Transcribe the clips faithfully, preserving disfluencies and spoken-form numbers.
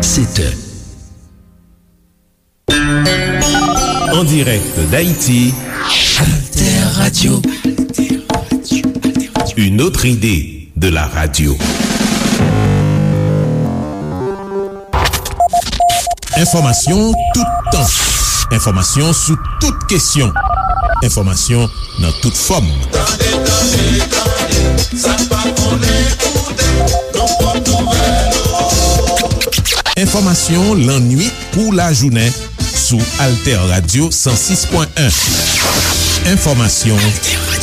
Sept heures. En direct d'Haïti, Alter Radio. Une autre idée de la radio. Enfòmasyon toutan. Enfòmasyon sou tout kesyon. Enfòmasyon nan tout fòm. Tande, tande, tande, sa n pa konnen koute, nan pwòp nouvèl ou. Enfòmasyon lannuit kou lajounen sou Alter Radio san sis pwen en. Enfòmasyon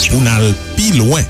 pou n al pi lwen.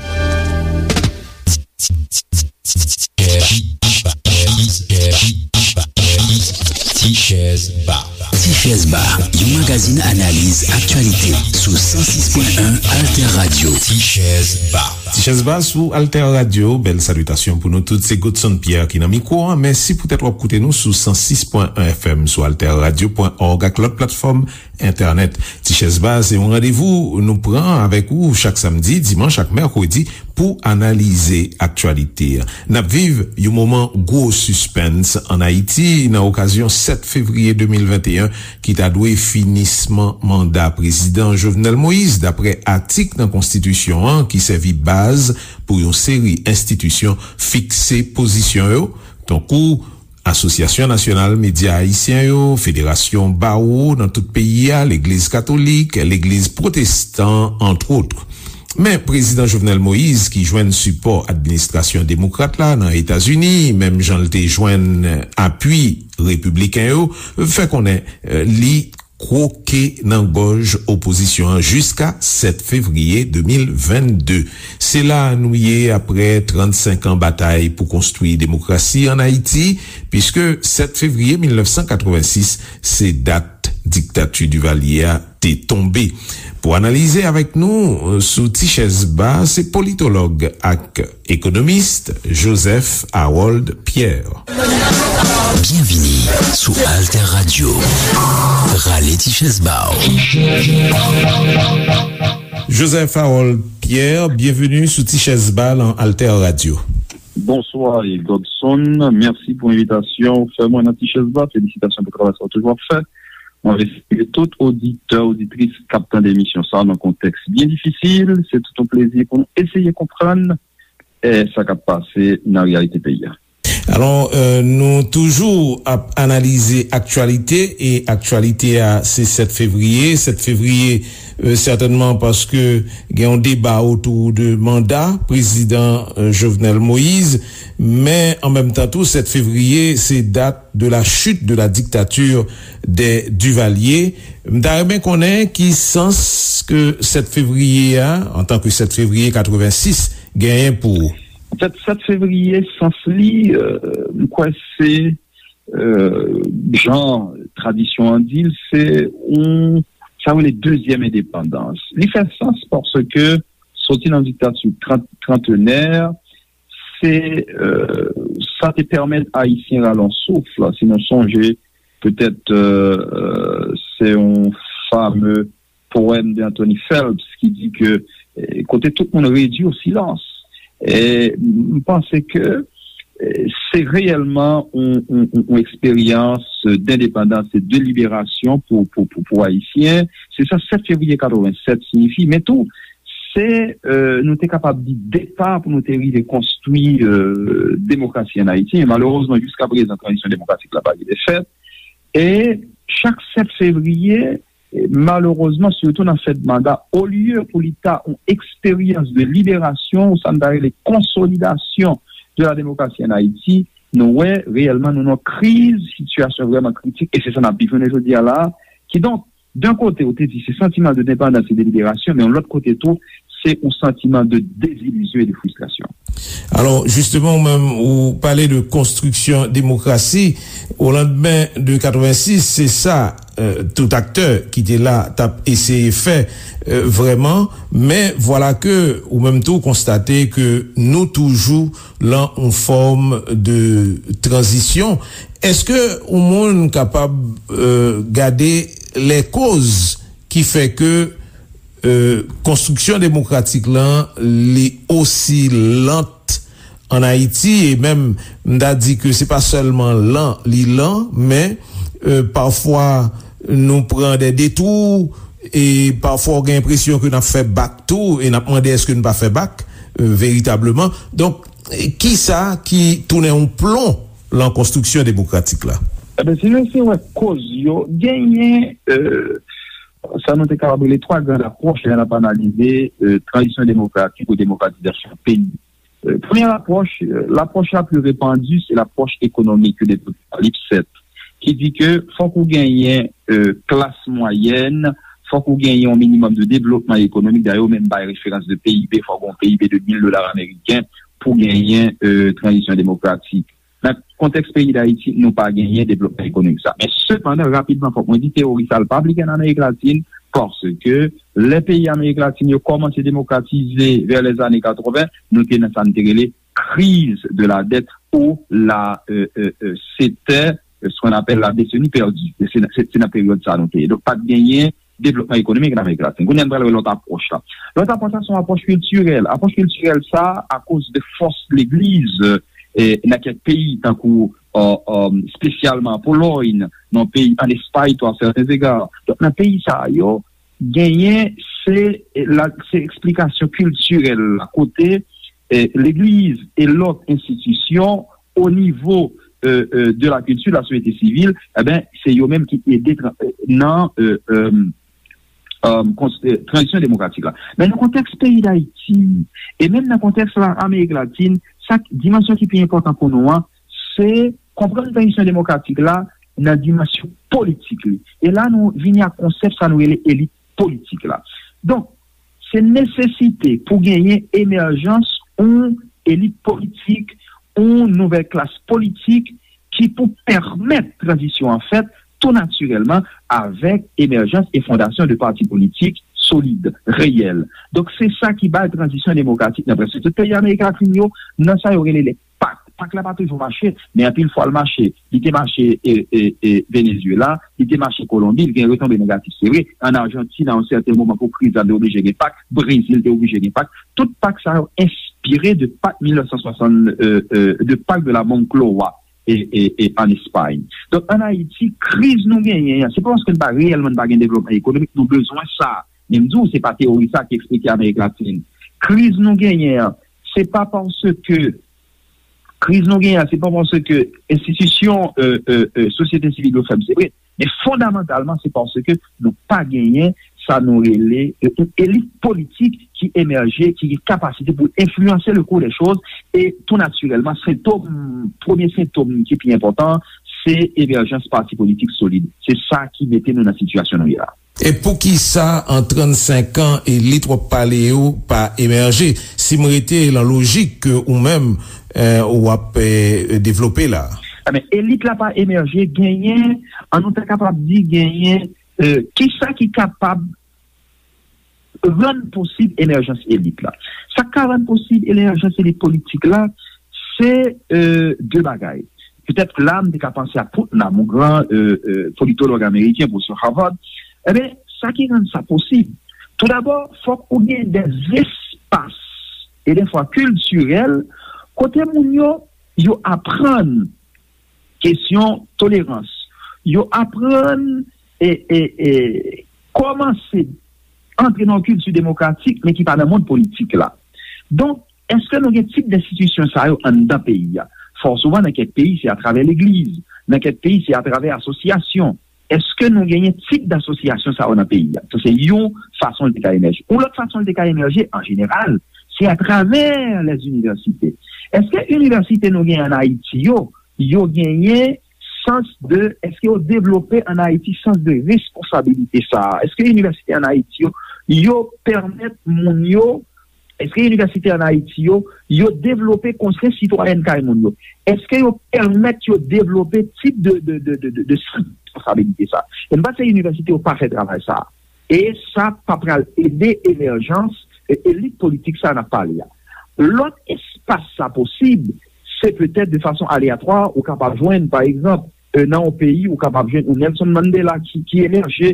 Tichèz Ba. Tichèz Ba, yon magazin analiz aktyalite sou san sis pwen en Alter Radio. Tichèz Ba. Tichèz Ba sou Alter Radio, bèl salitasyon pou nou tout. Se Godson Pierre ki nan mikwo a. Mèsi poutèt w ap koute nou sou san sis pwen en F M, sou alter radio pwen org ak lòt platfòm entènèt. Tichèz Ba se yon randevou nou pran avèk ou chak samdi, dimanch ak mèkredi pou analize aktyalite a. N ap viv yon moman gwo sispens ann Ayiti nan okazyon sèt fevriye de mil venteyen ki ta dwe finisman manda prezidan Jovenel Moïse, daprè atik nan konstitisyon an ki sèvi baz pou yon seri enstitisyon fikse pozisyon yo, tankou Asosyasyon Nasyonal Medya Ayisyen yo, Federasyon Bawo nan tout peyi a, Legliz Katolik, Legliz Pwotestan, antwot. Men, Prezidan Jovenel Moïse, ki jwenn sipò administrasyon demokrat la nan Etazini, menm jan l te jwenn apui repibliken yo, fè konnen, eh, li kwoke nan gòj opozisyon an jiska sèt fevriye de mil vennde. Se la nou ye apre trannsenk an batay pou konstwi demokrasi ann Ayiti, piske sèt fevriye mil nèf san katrevensis se dat diktati Divalye a te tonbe. Pou analize avèk nou, eh, sou Tichèz Ba, se politològ ak ekonomis Joseph Harold Pierre. Byenvini sou Alter Radio. Rale Tichèz Ba w. Joseph Harold Pierre, byenveni sou Tichèz Ba nan Alter Radio. Bonswa, Godson. Mèsi pou envitasyon ou fè mwen nan Tichèz Ba. Felisitasyon pou travay sa w toujou ap fè. Mwen espere tout oditè, oditris k ap tande emisyon sa a nan kontèks byen difisil, se tout yon plezi pou nou eseye konprann, eh, sa k ap pase nan reyalite peyi a. Alò, eh, nou toujou ap analize aktyalite, e aktyalite a se sèt fevriye. Sèt fevriye, eh, sètènman paske gen yon deba otou de manda prezidan, eh, Jovenel Moïse, men an menm tan tou, sèt fevriye se dat de la chute de la dictature des Duvalier. M ta renmen konnen ki sans ke sèt fevriye a, antanke sèt fevriye katrevensis, genyen pou ou. Anfèt, sèt fevriye, sans li, euh, m kwè se, euh, jan tradisyon an di l, se yon, sa yo rele dezyèm endepandans. Li fè sans paske soti nan diktati trant, trantenè, se, euh, sa te pèmèt Ayisyen rale yon souf, si nou sonje, petèt, euh, euh, se yon fame powèm de Anthony Phelps ki di ke, eh, kote tout moun redui o silans. E m panse ke, eh, se reyèlman yon, yon, yon, yon eksperyans dendepandans e de liberasyon pou, pou, pou, pou Ayisyen. Se sa sèt fevriye katrevennsèt siyifi. Men tou, se, euh, nou te kapab di depa pou nou te rive konstwi, euh, demokrasi ann Ayiti. E malerezman, jiska prezan, tranzisyon demokratik la pa rive fèt. E chak sèt fevriye, e malerezman, sitou nan fèt manda, olye pou li ta yon eksperyans de liberasyon, ou sa n ta rele konsolidasyon de la démocratie en Haïti, nou wè reyèlman nou nan kriz, sitiyasyon vrèman kritik, e se sa n ap viv jounen jodi a la. Kidonk, d'un kote, ou te di se santiman de depandans e de liberasyon, men yon lòt kote tou, se yon santiman de dezilizyon e de fristrasyon. Alò, jisteman, ou menm, ou pale de konstriksyon demokrasi. O landmen de katrevensis, se sa, euh, tout aktè ki te la t ap eseye fè, euh, vrèman. Men vwala ke ou menm tou konstate ke nou toujou lan yon fòm de tranzisyon. Èske yon moun kapab, euh, gade lèkoz ki fè ke, euh, konstriksyon demokratik lan, li osi lant ann Ayiti, e menm m ta di ke se pa sèlman lan li lan, men e, pafwa nou pran de detwou, e pafwa w gen enpresyon ke n ap fè bak tou, e n ap mande èske n pa fè bak e, veritableman. Donk, e, kisa ki tounen yon plon lan konstriksyon demokratik la? Eben, si nou se wè koz yo, genyen e, sa nou te kapab rele twa gran apwòch lè n ap analize e, tranzisyon demokratik ou demokratizasyon peyi. E, premye apwòch, e, lapwòch la pli repandi, se lapwòch ekonomik de Docteur Lipset, ki di ke fòk ou genyen e, klas mwayèn, fòk ou genyen yon minimòm de devlopman ekonomik. Dayè, yo menm bay referans de P I B, fòk yon P I B de mil dola ameriken pou genyen e, tranzisyon demokratik. Nan kontèks peyi Dayiti, nou pa genyen devlopman ekonomik sa. Men sepandan, rapidman, fòk mwen di, teyori sa l pa aplike ann Amerik Latin, paske lè peyi Amerik Latin yo kòmanse demokratize vè lèzane katreven, nou te nan sa n te rele crise de la dette ou la e, e, e, setè, e, ce qu'on appelle la décennie perdue. Se, se, se nan peryòd sa nou te ye. Donk, pa t genyen devlopman ekonomik nan Amerik Latin. Kounye a, n pral wè lòt apwòch la. Lòt apwòch la, se yon apwòch kiltirèl. Apwòch kiltirèl sa, akoz de fòs legliz e, nan kèk peyi, tankou e, e, espesyalman Polòy, nan peyi, ann Espay tou, à certains égards. Donk, nan peyi sa yo, genyen se, la, se eksplikasyon kiltirèl la, kote e, legliz e lòt enstitisyon o nivo e, e, de la kilti, la sosyete sivil, eben, se yo menm ki ede tra- e, nan e, e, e, kons- e, tranzisyon demokratik la. Men nan kontèks peyi Dayiti, e menm nan kontèks la, Amerik Latin, sa k- dimansyon ki pi enpòtan pou nou an, se konprann tranzisyon demokratik la nan dimansyon politik li. E la, nou vini ak konsèp sa nou rele elit politik la. Donk, se nesesite pou genyen emèjans yon elit politik, yon nouvèl klas politik ki pou pèmèt tranzisyon an fèt tou natirèlman avèk emèjans e fondasyon de pati politik solid, reyèl. Donk, se sa ki bay tranzisyon demokratik nan prèske tout peyi Amerik Latin yo, nan sa yo rele le pak. Pak la pa toujou mache, men anpil fwa l mache. Li te mache e, e, e, Venezuela, li te mache Kolonbi, li gen retonbe negatif, se vre. Ann Ajantin, a yon sèten moman, pou kriz la, te oblije gen pak. Brezil te oblije gen pak. Tout pak sa yo enspire de pak mil nèf san swasant, e, e, de pak de la Moncloa e, e, e ann Espay. Donk, ann Ayiti, kriz nou genyen an, se pa paske n pa reyèlman n pa gen devlopman ekonomik, nou bezwen sa. Men m di w, se pa teyori sa ki eksplike Amerik Latin. Kriz nou genyen an, se pa paske, kriz nou genyen an, se pa paske enstitisyon e, e, e, sosyete sivil yo fèb, se vre. Men fondamantalman, se paske nou pa genyen sa nou rele e, yon elit politik ki emèje, ki gen kapasite pou enfliyanse le cours des choses. E tou natirèlman, sentòm, premye sentòm ki pi enpòtan, se emèjans pati politik solid. Se sa ki mete nou nan sitiyasyon nou ye la. E poukisa an trannsenk an elit w ap pale yo pa emèje? Si m rete lan lojik ke ou menm e, w ap e, devlope la. Ebyen, elit la pa emèje, genyen, an nou ta kapab di, genyen e, kisa ki kapab rann posib emèjans elit la. Sa k ka rann posib emèjans elit politik la, se e, de bagay. Petèt la, m te ka panse a Putnam, yon gran e, e, politològ ameriken, pwofesè Harvard. Ebyen, sa ki rann sa posib, toudabò, fòk ou gen de espas, e defwa kiltirèl, kote moun yo, yo aprann kesyon tolerans. Yo aprann e, e, e, kòmanse antre nan yon kilti demokratik, men ki pa nan mond politik la. Donk, èske nou gen tip enstitisyon sa yo anndan peyi a? Fò souvan, nan kèk peyi, se atravè legliz. Nan kèk peyi, se atravè asosyasyon. Èske nou genyen tip dasosyasyon sa yo nan peyi a? Sa se yon fason l te ka emèje. Yon lòt fason l te ka emèje, an jeneral, se atravè lèzinivèsite. Èske inivèsite nou genyen ann Ayiti yo, yo genyen sans de, èske yo devlope ann Ayiti sans de responsabilite sa a? Èske inivèsite ann Ayiti yo, yo pèmèt moun yo, èske inivèsite ann Ayiti yo, yo devlope konsyans sitwayèn kay moun yo? Èske yo pèmèt yo devlope tip de, de, de, de, de, de sans de responsabilite sa a? E m panse inivèsite yo pa fè travay sa a. E sa pa pral ede emèjans e, elit politik sa a n ap pale a. Lòt espas sa posib, se petèt de fason aleyatwa, ou kapab jwenn, pa egzanp, e, nan yon peyi, ou kapab jwenn yon Nelson Mandela ki, ki emèje,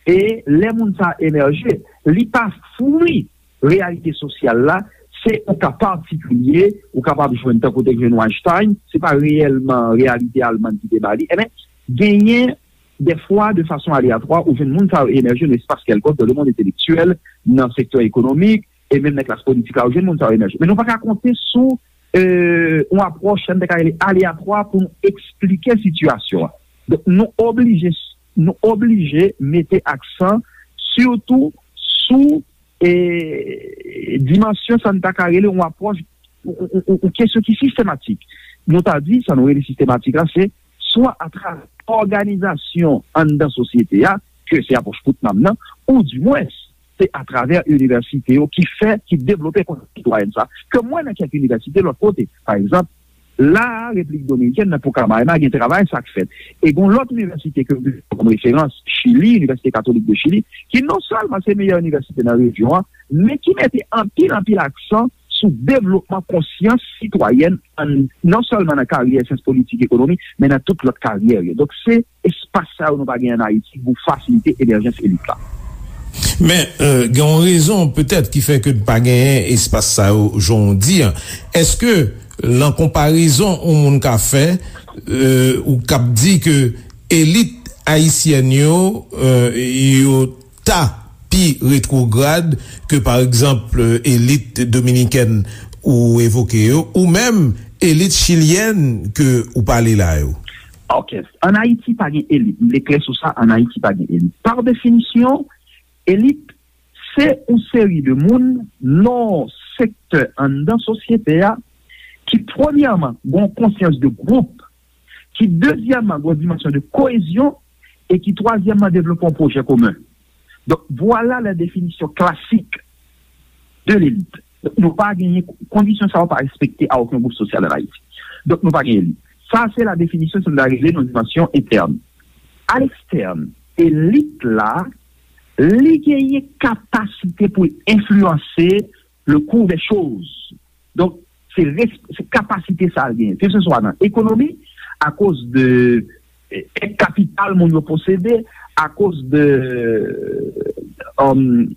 e lè moun sa a emèje, li pa fwi reyalite sosyal la, se yon ka patikilye, ou kapab jwenn tankou te jwenn Weinstein, se pa reyèlman reyalite almann ki te ba li. Ebyen, genyen dèfwa, de fason aleyatwa, ou jwenn moun sa yo emèje nan espas kèlkonk, dans le monde intellectuel, nan sektè ekonomik, e menm nan klas politik la, ou jwenn moun sa yo emèje. Men nou pa ka konte sou euh, yon apwòch, sa n te ka rele aleyatwa pou nou eksplike sitiyasyon an. Donk, nou oblije, nou oblije mete aksan sitou sou eh, dimansyon sa n ta ka rele yon apwòch, yon, yon, yon, yon kesyon ki sistematik. Nou ta di, sa nou rele sistematik la, se swa atravè òganizasyon anndan sosyete a, ke se apwòch Putnam nan, ou dimwens, se atravè inivèsite yo ki fè, ki devlope konsyans sitwayèn sa, ke m wè nan kèk inivèsite lòt kote. Pa egzanp, la a, Repiblik Dominikèn, nan Pucamaima, gen travay sa k fèt. E gen lòt inivèsite ke m pran kòm referans, Chili, Inivèsite Katolik de Chili, ki non sèlman se meyè inivèsite nan rejyon an, men ki mete anpil, anpil aksan sou devlopman konsyans sitwayèn, an, non sèlman nan karyè syans politik, ekonomi, men nan tout lòt karyè yo. Donk, se espas sa yo nou pa gen ann Ayiti pou fasilite emèjans elit la. Men, euh, gen yon rezon petèt ki fè ke n pa genyen espas sa yo, jan w di an. Èske, lan konparezon yon moun ka fè, euh, ou k ap di ke elit ayisyèn yo, euh, yo ta pi retwograd ke, pa egzanp, elit dominikèn ou evoke yo, ou menm elit chilyèn ke ou pale la yo? Ok. Ann Ayiti, pa gen elit. M vle klè sou sa, ann Ayiti, pa gen elit. Pa definisyon, elit, se yon seri de moun nan sektè anndan sosyete a ki, premyèman, gen yon konsyans de gwoup, ki, dezyèmman, gen yon dimansyon de koyezyon, e ki, twazyèmman, devlope yon pwojè komen. Donk, vwala la definisyon klasik de lelit. Donk, nou pa genyen, kondisyon sa yo pa respekte a okenn gwoup sosyal ann Ayiti. Donk, nou pa gen elit. Sa, se la definisyon, sa nou ta rele nan dimansyon entèn. A lekstèn, elit la, li genyen kapasite pou l enfliyanse le cours des choses. Donk, se res-, se kapasite sa l genyen. Ke se swa nan ekonomi, akoz de, eh, èd kapital moun yo posede, akoz de, um,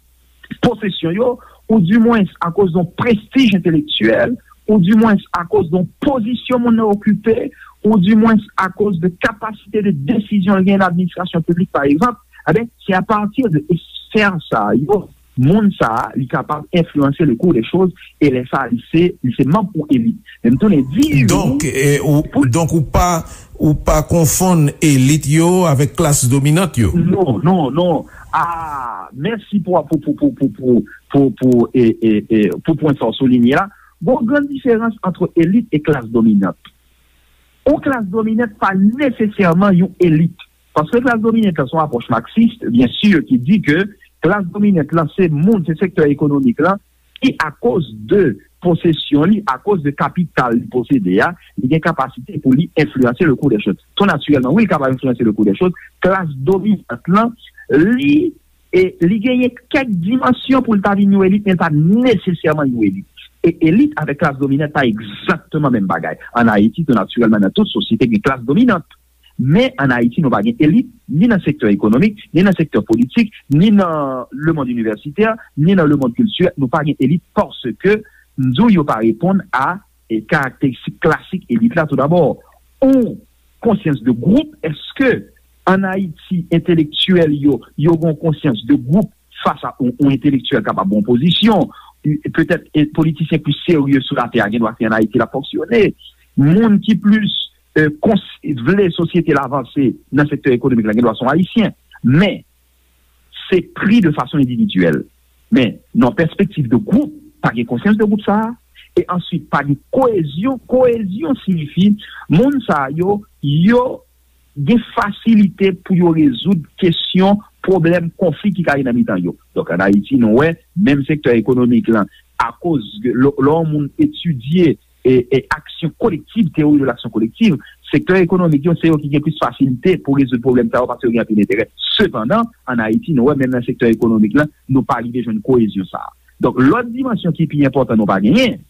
posesyon yo, ou dimwens akoz de yon prestij entelektyèl, ou dimwens akoz de yon pozisyon moun nan okipe, ou dimwens akoz de kapasite de desizyon l genyen nan administrasyon piblik, pa egzanp, eben, se apati de esfè sa yo, moun sa a, li kapab enfliyanse le cours des choses, e lè sa a, li se, li se manm yon elit. Men m tounen di ou, donk, e, ou, pou donk, ou pa, ou pa konfonn elit yo avèk klas dominant yo? Non, non, non. Ah, mèsi pou, pou, pou, pou, pou, pou, pou, pou, e, e, e, pou pwen sa w soulinye la. Gon gran diferans ant elit e klas dominant. Yon klas dominant pa nesesèman yon elit. Paske klas dominant lan se yon apwòch maksis, byen si, ki di ke klas dominant lan se moun, se sektè ekonomik lan ki, akoz de posesyon li, akoz de kapital li posede a, li gen kapasite pou li enfliyanse le cours des choses. Tou natirèlman, wi, li kapab enfliyanse le cours des choses. Klas dominant lan, li, e, li genyen kèk dimansyon pou l ta vin yon elit, men l pa nesesèman yon elit. E elit avèk klas dominant pa egzakteman menm bagay. Ann Ayiti, tou natirèlman, nan tout sosyete, gen klas dominant. Men ann Ayiti, nou pa gen elit, ni nan sektè ekonomik, ni nan sektè politik, ni nan lemonn inivèsitè, ni nan lemonn kiltirèl. Nou pa gen elit paske, m di w, yo pa reponn a, e, karakteristik klasik elit la, toudabò. Yon konsyans de gwoup, èske ann Ayiti, entelektyèl yo, yo gen yon konsyans de gwoup fas a yon, yon entelektyèl kapab yon pozisyon, petèt, e, politisyen plis serye sou latè a gen dwa se ann Ayiti l ap fonksyone. Moun ki plis, e, kons-, vle sosyete l avanse nan sektè ekonomik la gen dwa se yon Ayisyen. Men, se pri de fason endividyèl. Men, nan pèspektiv de gwoup, pa gen konsyans de gwoup sa a. E answit, pa gen koyezyon. Koyezyon siyifi, moun sa a yo, yo gen fasilite pou yo rezoud kesyon, pwoblèm, konfli ki ka gen nan mitan yo. Donk, ann Ayiti, nou wè, menm sektè ekonomik lan, akoz lè, lè yon moun etidye, e, e aksyon kolektiv, théorie de l'action collective, sektè ekonomik yo, se yo ki gen plis fasilite pou rezoud pwoblèm sa yo, paske yo gen anpil enterè. Sepandan, ann Ayiti, nou wè, menm nan sektè ekonomik lan, nou pa rive jwenn koyezyon sa a. Donk, lòt dimansyon ki pi enpòtan nou pa genyen,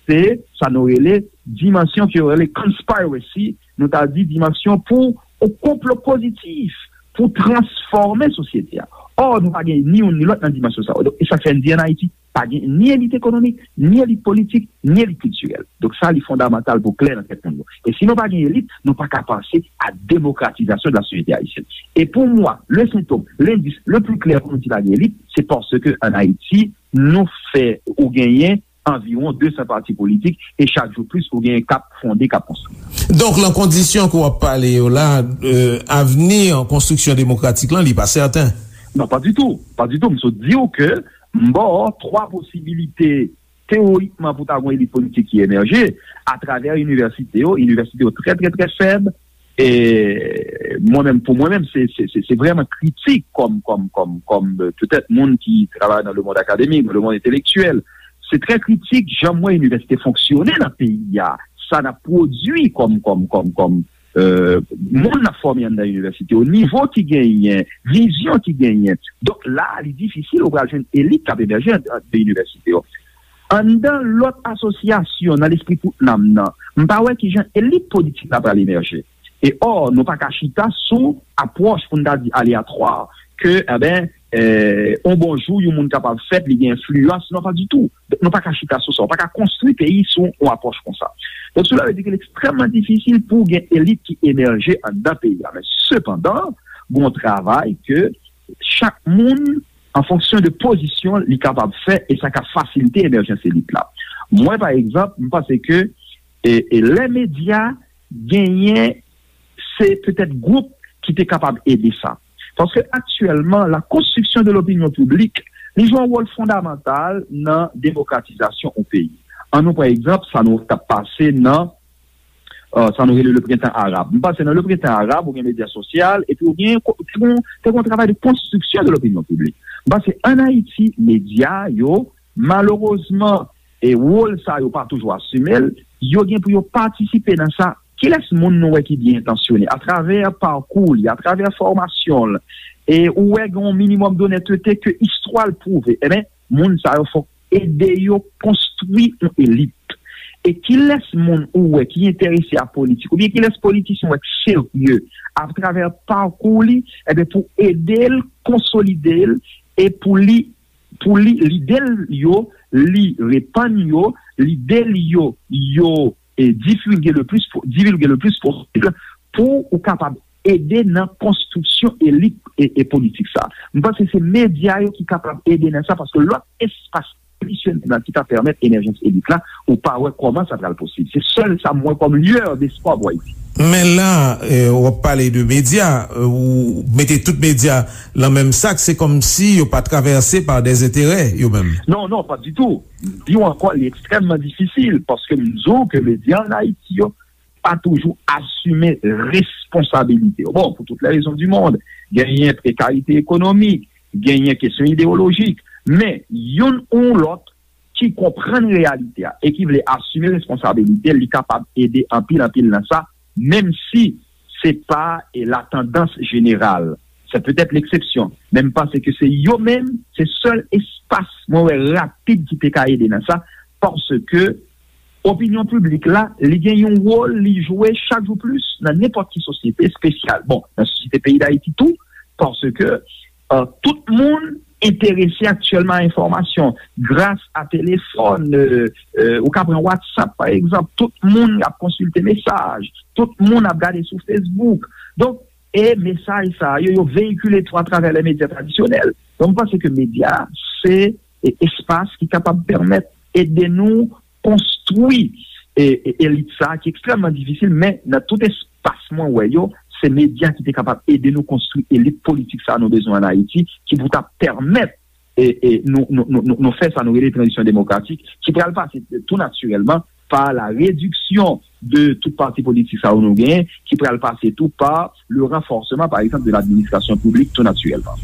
se sa nou rele dimansyon ke yo rele conspiracy, nou ta di dimansyon pou yon konplo pozitif, pou transfòme sosyete a. Or, nou pa gen ni youn ni lòt nan dimansyon sa yo. Donk, e sa k fè n di ann Ayiti, pa gen ni elit ekonomik, ni elit politik, ni elit kiltirèl. Donk, sa, li fondamantal pou klè nan tèt moun yo. E si nou pa gen elit, nou pa ka panse a demokratizasyon de la société haïtienne. Et pour moi, le symptôme, l'indice le plus clair pou nou di pa gen elit, se paske ann Ayiti, nou fè ou genyen anviwon de san pati politik, e chak jou plis ou genyen k ap fonde, k ap konstwi. Donk, lan kondisyon ke w ap pale yo la, euh, avni konstriksyon demokratik lan, li pa sèten. Non, pa ditou. Pa ditou. M sot di w ke m ba w twa posibilite teorikman pou ta gen yon elit politik ki emèje atravè inivèsite yo. Inivèsite yo trè, trè, trè fèb. E mwen menm, pou mwen menm, se, se, se, se vrèman kritik kòm, kòm, kòm, kòm, euh, petèt moun ki travay nan le monde académique, nan le monde intellectuel. Se trè kritik jan m wè inivèsite fonksyone nan peyi a. Sa n ap pwodui kòm, kòm, kòm, kòm, euh, moun n ap fòme anndan inivèsite yo, nivo ki genyen, vizyon ki genyen. Donk la, li difisil ou pral jwenn elit k ap emèje anndan inivèsite yo. Anndan lòt asosyasyon nan lespri tout nanm nan, m pa wè kijan elit politik la pral emèje. E ò, nou pa ka chita sou apwòch pou n ta di aleyatwa, ke, enben, eh, on bon jou, yon moun kapab fèt, li gen enfliyans. Non, pa ditou. Nou pa ka chita sou sa. Ou pa ka konstwi peyi sou yon apwòch konsa. Donk, sela vle di ke li ekstrèmman difisil pou gen elit ki emèje anndan peyi a. Men, sepandan, gon travay ke chak moun, an fonksyon de pozisyon, li kapab fè, e sa ka fasilite emèjans elit la. Mwen, pa egzanp, m panse ke e, e lè medya genyen, se petèt gwoup ki te kapab ede sa. Paske aktyèlman, la construction de l'opinion publique, li jwe yon wòl fondamantal nan demokratizasyon yon peyi. An nou pran egzanp, sa nou t ap pase nan, euh, sa nou rele le printemps arabe. M panse nan le printemps arabe, ou gen medya sosyal, epi ou gen, te gen, te gen yon travay de construction de l'opinion publique. M panse ann Ayiti, medya yo, malerezman, e wòl sa yo pa toujou asime l, yo gen pou yo patisipe nan sa. Kilès moun nou wè ki byen entansyone atravè pakou li, atravè fòmasyon l, e ou wè gen yon minimòm donètete ke istwa l pwouve, enben, moun sa yo fòk ede yo konstwi yon elit. E kilès moun ou wè ki enterese a politik, oubyen kilès politisyen ou wè ki serye atravè pakou li, enben, pou ede l konsolide l e pou li pou li, lide l yo, li repann yo, lide l yo, yo e, divulge le plus, divulge le plus posib pou ou kapab ede nan konstriksyon elit e, e politik sa. M panse se medya yo ki kapab ede nan sa, paske lòt espas tradisyonèl la ki ta pèmèt emèjans elit la, ou pa wè kòman sa pral posib. Se sèl sa m wè kòm lueur d'espoir pou Ayiti. Men la, eh, w ap pale de medya, eh, ou mete tout medya lan menm sak, se kòmsi yo pa travèse pa dè enterè, yo menm. Non, non, pa ditou. M di w ankò, li ekstrèmman difisil, paske m di w ke medya ann Ayiti yo pa toujou asime responsabilite yo. Bon, pour toutes les raisons du monde, genyen prekarite ekonomik, genyen kesyon ideyolojik, men youn ou lòt ki konprann reyalite a e ki vle asime responsabilite l, li kapab ede anpil, anpil nan sa, menm si se pa, e, la tandans jeneral. Se petèt leksepsyon, men m panse ke se yo menm, se sèl espas mwen wè rapid ki te ka ede nan sa, paske opinyon piblik la, li gen yon wòl li jwe chak jou plis nan nenpòt ki sosyete espesyal. Bon, nan sosyete peyi Dayiti tou, paske, euh, tout moun enterese aktyèlman a enfòmasyon. Gras a telefòn, euh, euh, ou ka pran WhatsApp, pa egzanp, tout moun ap konsilte mesaj, tout moun ap gade sou Facebook. Donk, e mesaj sa yo, yo veyikile tou atravè lè medya tradisyonèl. Donk, m panse ke medya, se, e, espas ki kapab pèmèt ede nou konstwi, e, e, elit sa a ki ekstrèmman difisil, men nan tout espas mwen wè yo, se medya ki te kapab ede nou konstwi elit politik sa a nou bezwen ann Ayiti, ki pou ta pèmèt, e, e, nou, nou, nou, nou, nou fè sa nou rele tranzisyon demokratik, ki pral pase tou natirèlman pa la rediksyon de tout pati politik sa yo nou genyen, ki pral pase tou pa le renforcement, par exemple, de l'administration publique, tout naturellement.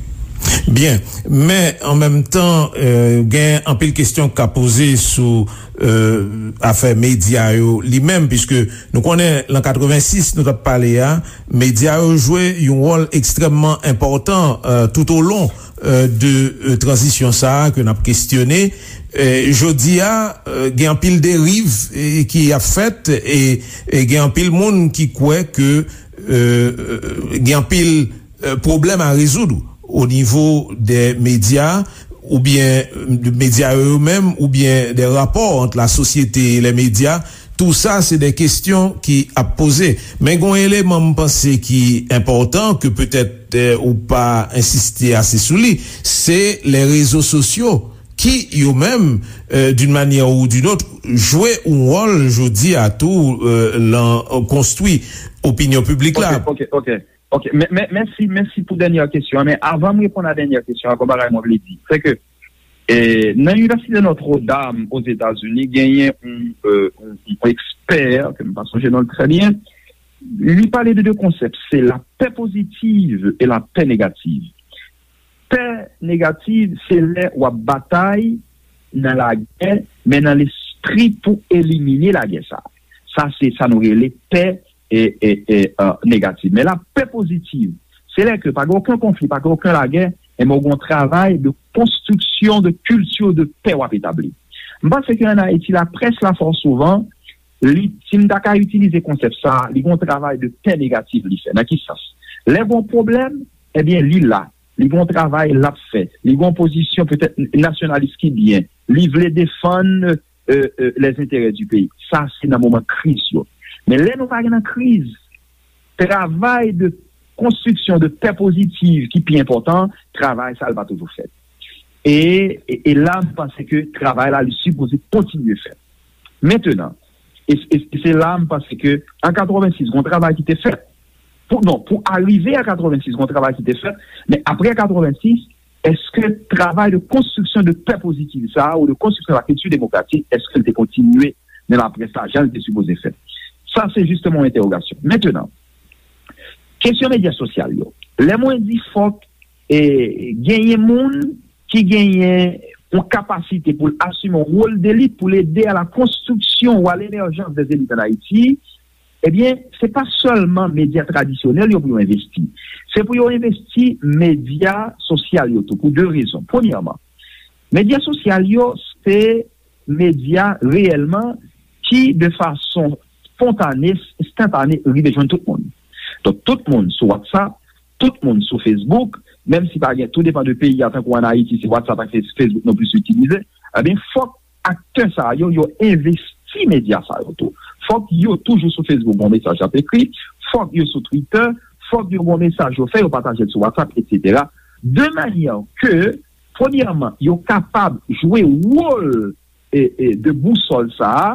Byen, men an menm tan, euh, gen anpil kesyon k ka poze sou, euh, afè medya yo li menm, piske nou konnen lan katrevensis, nou t ap pale a, medya yo jwe yon wòl ekstrèmman enpòtan, euh, tout o lon, euh, de, euh, tranzisyon sa a ke n ap kestyone. Euh, jodi a, euh, gen anpil deriv, euh, ki ap fèt, e, e gen anpil moun ki kwè ke, euh, euh, gen anpil, euh, pwoblèm a rezoud. o nivo dè medya, oubyen medya yo menm, oubyen dè rapò ant la sosyete e lè medya, tou sa se dè kestyon ki ap poze. Men gon eleman m panse ki enpòtan, ke petèt, eh, ou pa ensiste ase sou li, se lè rezo sosyo ki yo menm, eh, d'une manière ou d'une autre, jwe yon wòl jodi a tou, eh, lan konstwi opinyon piblik la. Ok, ok, ok. Ok, men, men, mèsi, mèsi pou dènyè kesyon an. Men avan m reponn a dènyè kesyon an, gon bagay mwen vle di, se ke, eh, nan Inivèsite Notre Dame Ozetazini, genyen yon, eh, yon, yon ekspè, ke m pa sonje non l trè byen, li pale de de konsèp, se la pè pozitiv e la pè negativ. Pè negativ, se lè w ap batay nan lagè, men nan lespri pou elimine lagè sa. Sa, se sa nou rele pè e, e, e, eh, negativ. Men la pè pozitiv, se lè ke pa gen okenn konfli, pa gen okenn lagè, enben w gen yon travay de konstriksyon de kilti de pè w ap etabli. M panse ke ann Ayiti, laprès la fò souvan, li, si m ta ka itilize konsèp sa, li gen yon travay de pè negatif li fè. Nan ki sans? Lè gen yon pwoblèm, ebyen, li la. Li gen yon travay l ap fè. Li gen yon pozisyon petèt nasyonalis ki byen. Li vle defann, eh, eh, les intérêts du pays. Sa, se nan moman kriz yo. Men lè nou pa gen nan kriz, travay de konstriksyon de pè pozitiv ki pi enpòtan, travay sa, l pa toujou fèt. E, e, e la, m panse ke travay la, li sipoze kontinye fèt. Mentenan, e, e, e se la, m panse ke an katrevensis, gon travay ki te fèt. Pou, non, pou arive a katrevensis, gon travay ki te fèt, men apre katrevensis, èske travay de konstriksyon de pè pozitiv sa a, ou de konstriksyon la kilti demokratik, èske l te kontinye nan laprès la, jan l te sipoze fèt? Sa, se jisteman yon entèwogasyon. Mentenan, kesyon medya sosyal yo. Lè mwen di fòk, eh, genyen moun ki genyen yon kapasite pou l asime yon wòl delit, pou l ede a la konstriksyon ou a lemèjans dè elit ann Ayiti, ebyen, se pa sèlman medya tradisyonèl yo pou yo envesti. Se pou yo envesti medya sosyal yo tou, pou de rezon. Premyèman, medya sosyal yo, se medya reyèlman ki, de fason spontane, enstantane, rive jwenn tout moun. Donk, tout moun sou WhatsApp, tout moun sou Facebook, menm si pa gen, tou depann de peyi a, tankou ann Ayiti, se WhatsApp ak Face-, Facebook nou plis itilize, ebyen, fòk aktè sa yo, yo envesti medya sa yo tou. Fòk yo toujou sou Facebook, bon mesaj ap ekri, fòk yo sou Twitter, fòk yo gon mesaj yo fè, yo pataje l sou WhatsApp, etsetera. De manyè ke, premyèman, yo kapab jwe wòl, e, e, de bousòl sa a,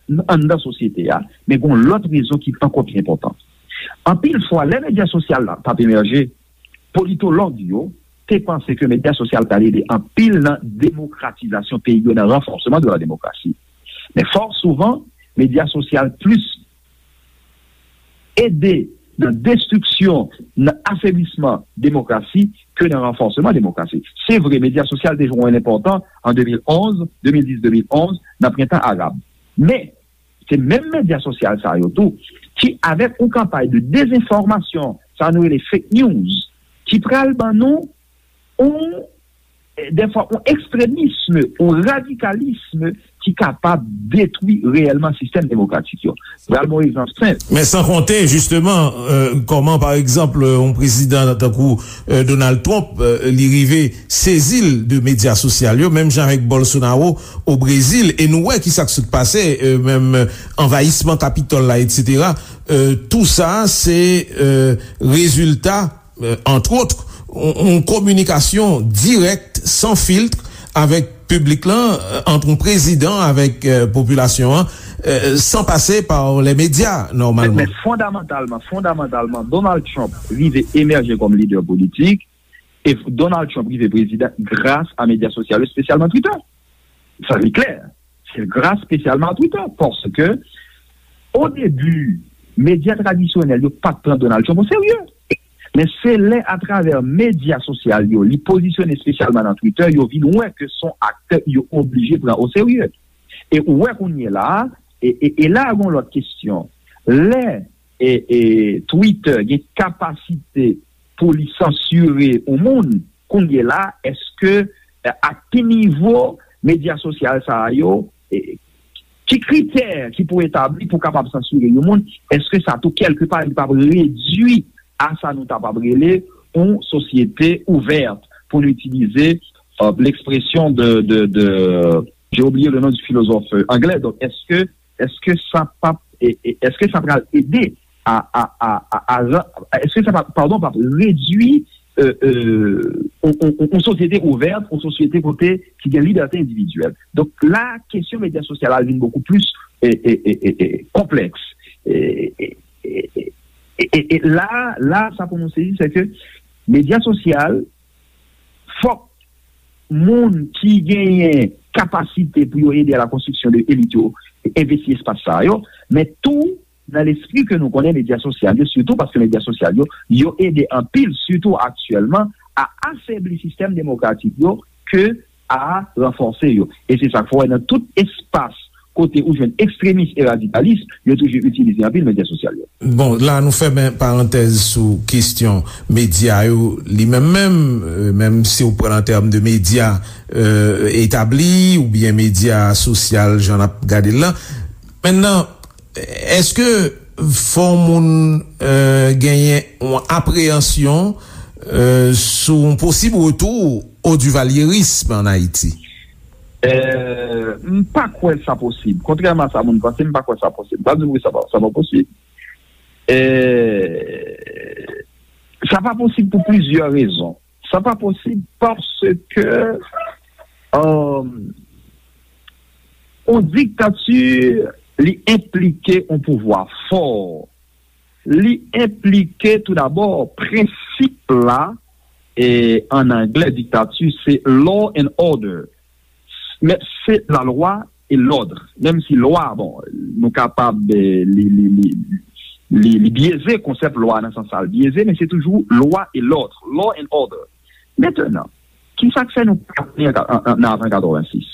n-, anndan sosyete a, men gon lòt rezon ki ankò pi enpòtan. Anpil fwa, lè medya sosyal la t ap emèje, politològ yo te panse ke medya sosyal t al ede anpil nan demokratizasyon peyi yo, nan ranfòsman de la demokrasi. Men fò souvan, medya sosyal plis ede nan destriksyon, nan afeblisman demokrasi ke nan ranfòsman demokrasi. Se vre, medya sosyal te jwe yon wòl enpòtan an de mil onz, de mil dis, de mil onz, nan prentan arab. Men, se menm medya sosyal sa yo tou ki, avèk yon kanpay de dezenfòmasyon, sa nou rele fake news, ki pral ban nou yon, dèfwa, yon ekstremism, yon radikalism ki kapab detwi reyèlman sistèm demokratik yo. Pral bon egzanp senp. Men san konte, jisteman, euh, kòman, pa egzanp, yon prezidan tankou, euh, Donald Trump, euh, li rive sezi l de medya sosyal yo, menm jan avèk Bolsonaro o Brezil, e nou wè ki sa k sot pase, euh, menm, euh, anvayisman Kapitòl la, etsetera. Euh, tou sa, se, euh, rezilta, euh, entre autres, yon, yon kominikasyon dirèk, san filtre, avèk piblik lan, euh, ant yon prezidan avèk, euh, popilasyon an, euh, san pase pa lè medya, nòmalman. Men, men fondamantalman, fondamantalman, Donald Trump rive emèje kòm lidè politik, e Donald Trump rive prezidan gras a medya sosyal yo, espesyalman Twitter. Sa, li klè. Se gras espesyalman a Twitter. Paske, o debi, medya tradisyonèl yo pa t pran Donald Trump o serye. Men se lè, atravè medya sosyal yo, li pozisyone espesyalman nan Twitter, yo vin wè ke se yon aktè yo oblije pran o serye. E ou wè kounye la a, e, e, e la a gon lòt kesyon. Lè, e, e, Twitter gen kapasite pou li sansire yon moun, kounye la, èske, e, a ki nivo medya sosyal sa a yo, e, ki kritè ki pou etabli pou kapab sansire yon moun? Èske sa tou, kèlkepa, li p ap redui a sa nou ta p ap rele yon sosyete ouvèt, pou nou itilize, euh, l'expression de, de, de, j'ai oublié le nom du philosophe, euh, anglè. Donk, èske, èske sa p ap, e, e, èske sa pral ede a, a, a, a, a ran-, èske sa p ap, padon, p ap redui, euh, euh, yon, yon, yon, yon sosyete ouvèt, yon sosyete kote ki gen libète endividyèl? Donk, la, kesyon medya sosyal la vin bokou plis, e, e, e, e, e, konplèks. E, e, e, e, e, e, e la, la, sa pou nou sezi, se ke medya sosyal, fòk moun ki genyen kapasite pou yo ede a la konstriksyon de elit yo envesti espas sa yo, men tou nan lespri ke nou konnen medya sosyal yo, sitou paske medya sosyal yo, yo ede anpil, sitou aktyèlman, a afebli sistèm demokratik yo ke a ranfòse yo. E se sa k fè w wè nan tout espas kote ou jwenn ekstremis e radikalis, yo toujou itilize anpil medya sosyal yo. Bon, la nou fèmen parantèz sou kesyon medya yo li menm menm, euh, menm si w pran an tèm de medya, euh, etabli oubyen medya sosyal, jan n ap gade l lan. Mentnan, èske fò moun, euh, genyen yon apreyansyon, euh, sou yon posib retou o divalyerism an Ayiti? Euh, m pa kwè sa posib. Kontrèman a sa moun panse, m pa kwè sa posib. M pa di w sa pa, sa pa posib. Euh, sa pa posib pou plizyè rezon. Sa pa posib paske, euh, yon diktati, li enplike yon pouvwa fò. Li enplike toudabò prensip la, e an anglè, diktati, se law and order. Men se la lwa e lòd. Menm si lwa, bon, nou kapab, eh, li, li, li, li, li byeze, konsèp lwa nan sans sa l byeze, men se toujou lwa e lòd, law and order. Mentnan, ki sa k fè nou pa tounen an, an, an, nan avan katrevensis?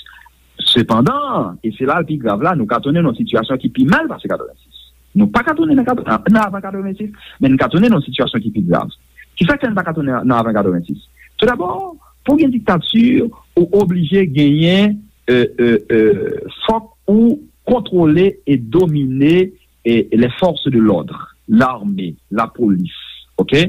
Sepandan, e se la l pi grav la, nou ka tounen nan yon sitiyasyon ki pi mal pase katrevensis. Nou pa ka tounen nan, kat-, nan avan katrevensis, men n ka tounen nan yon sitiyasyon ki pi grav. Ki sa k fè n pa ka tounen nan avan katrevensis? Toudabò, pou gen diktati, ou oblije genyen, euh, euh, euh, fòk ou kontwole e domine, eh, les forces de l'ordre, lame, lapolis, oke?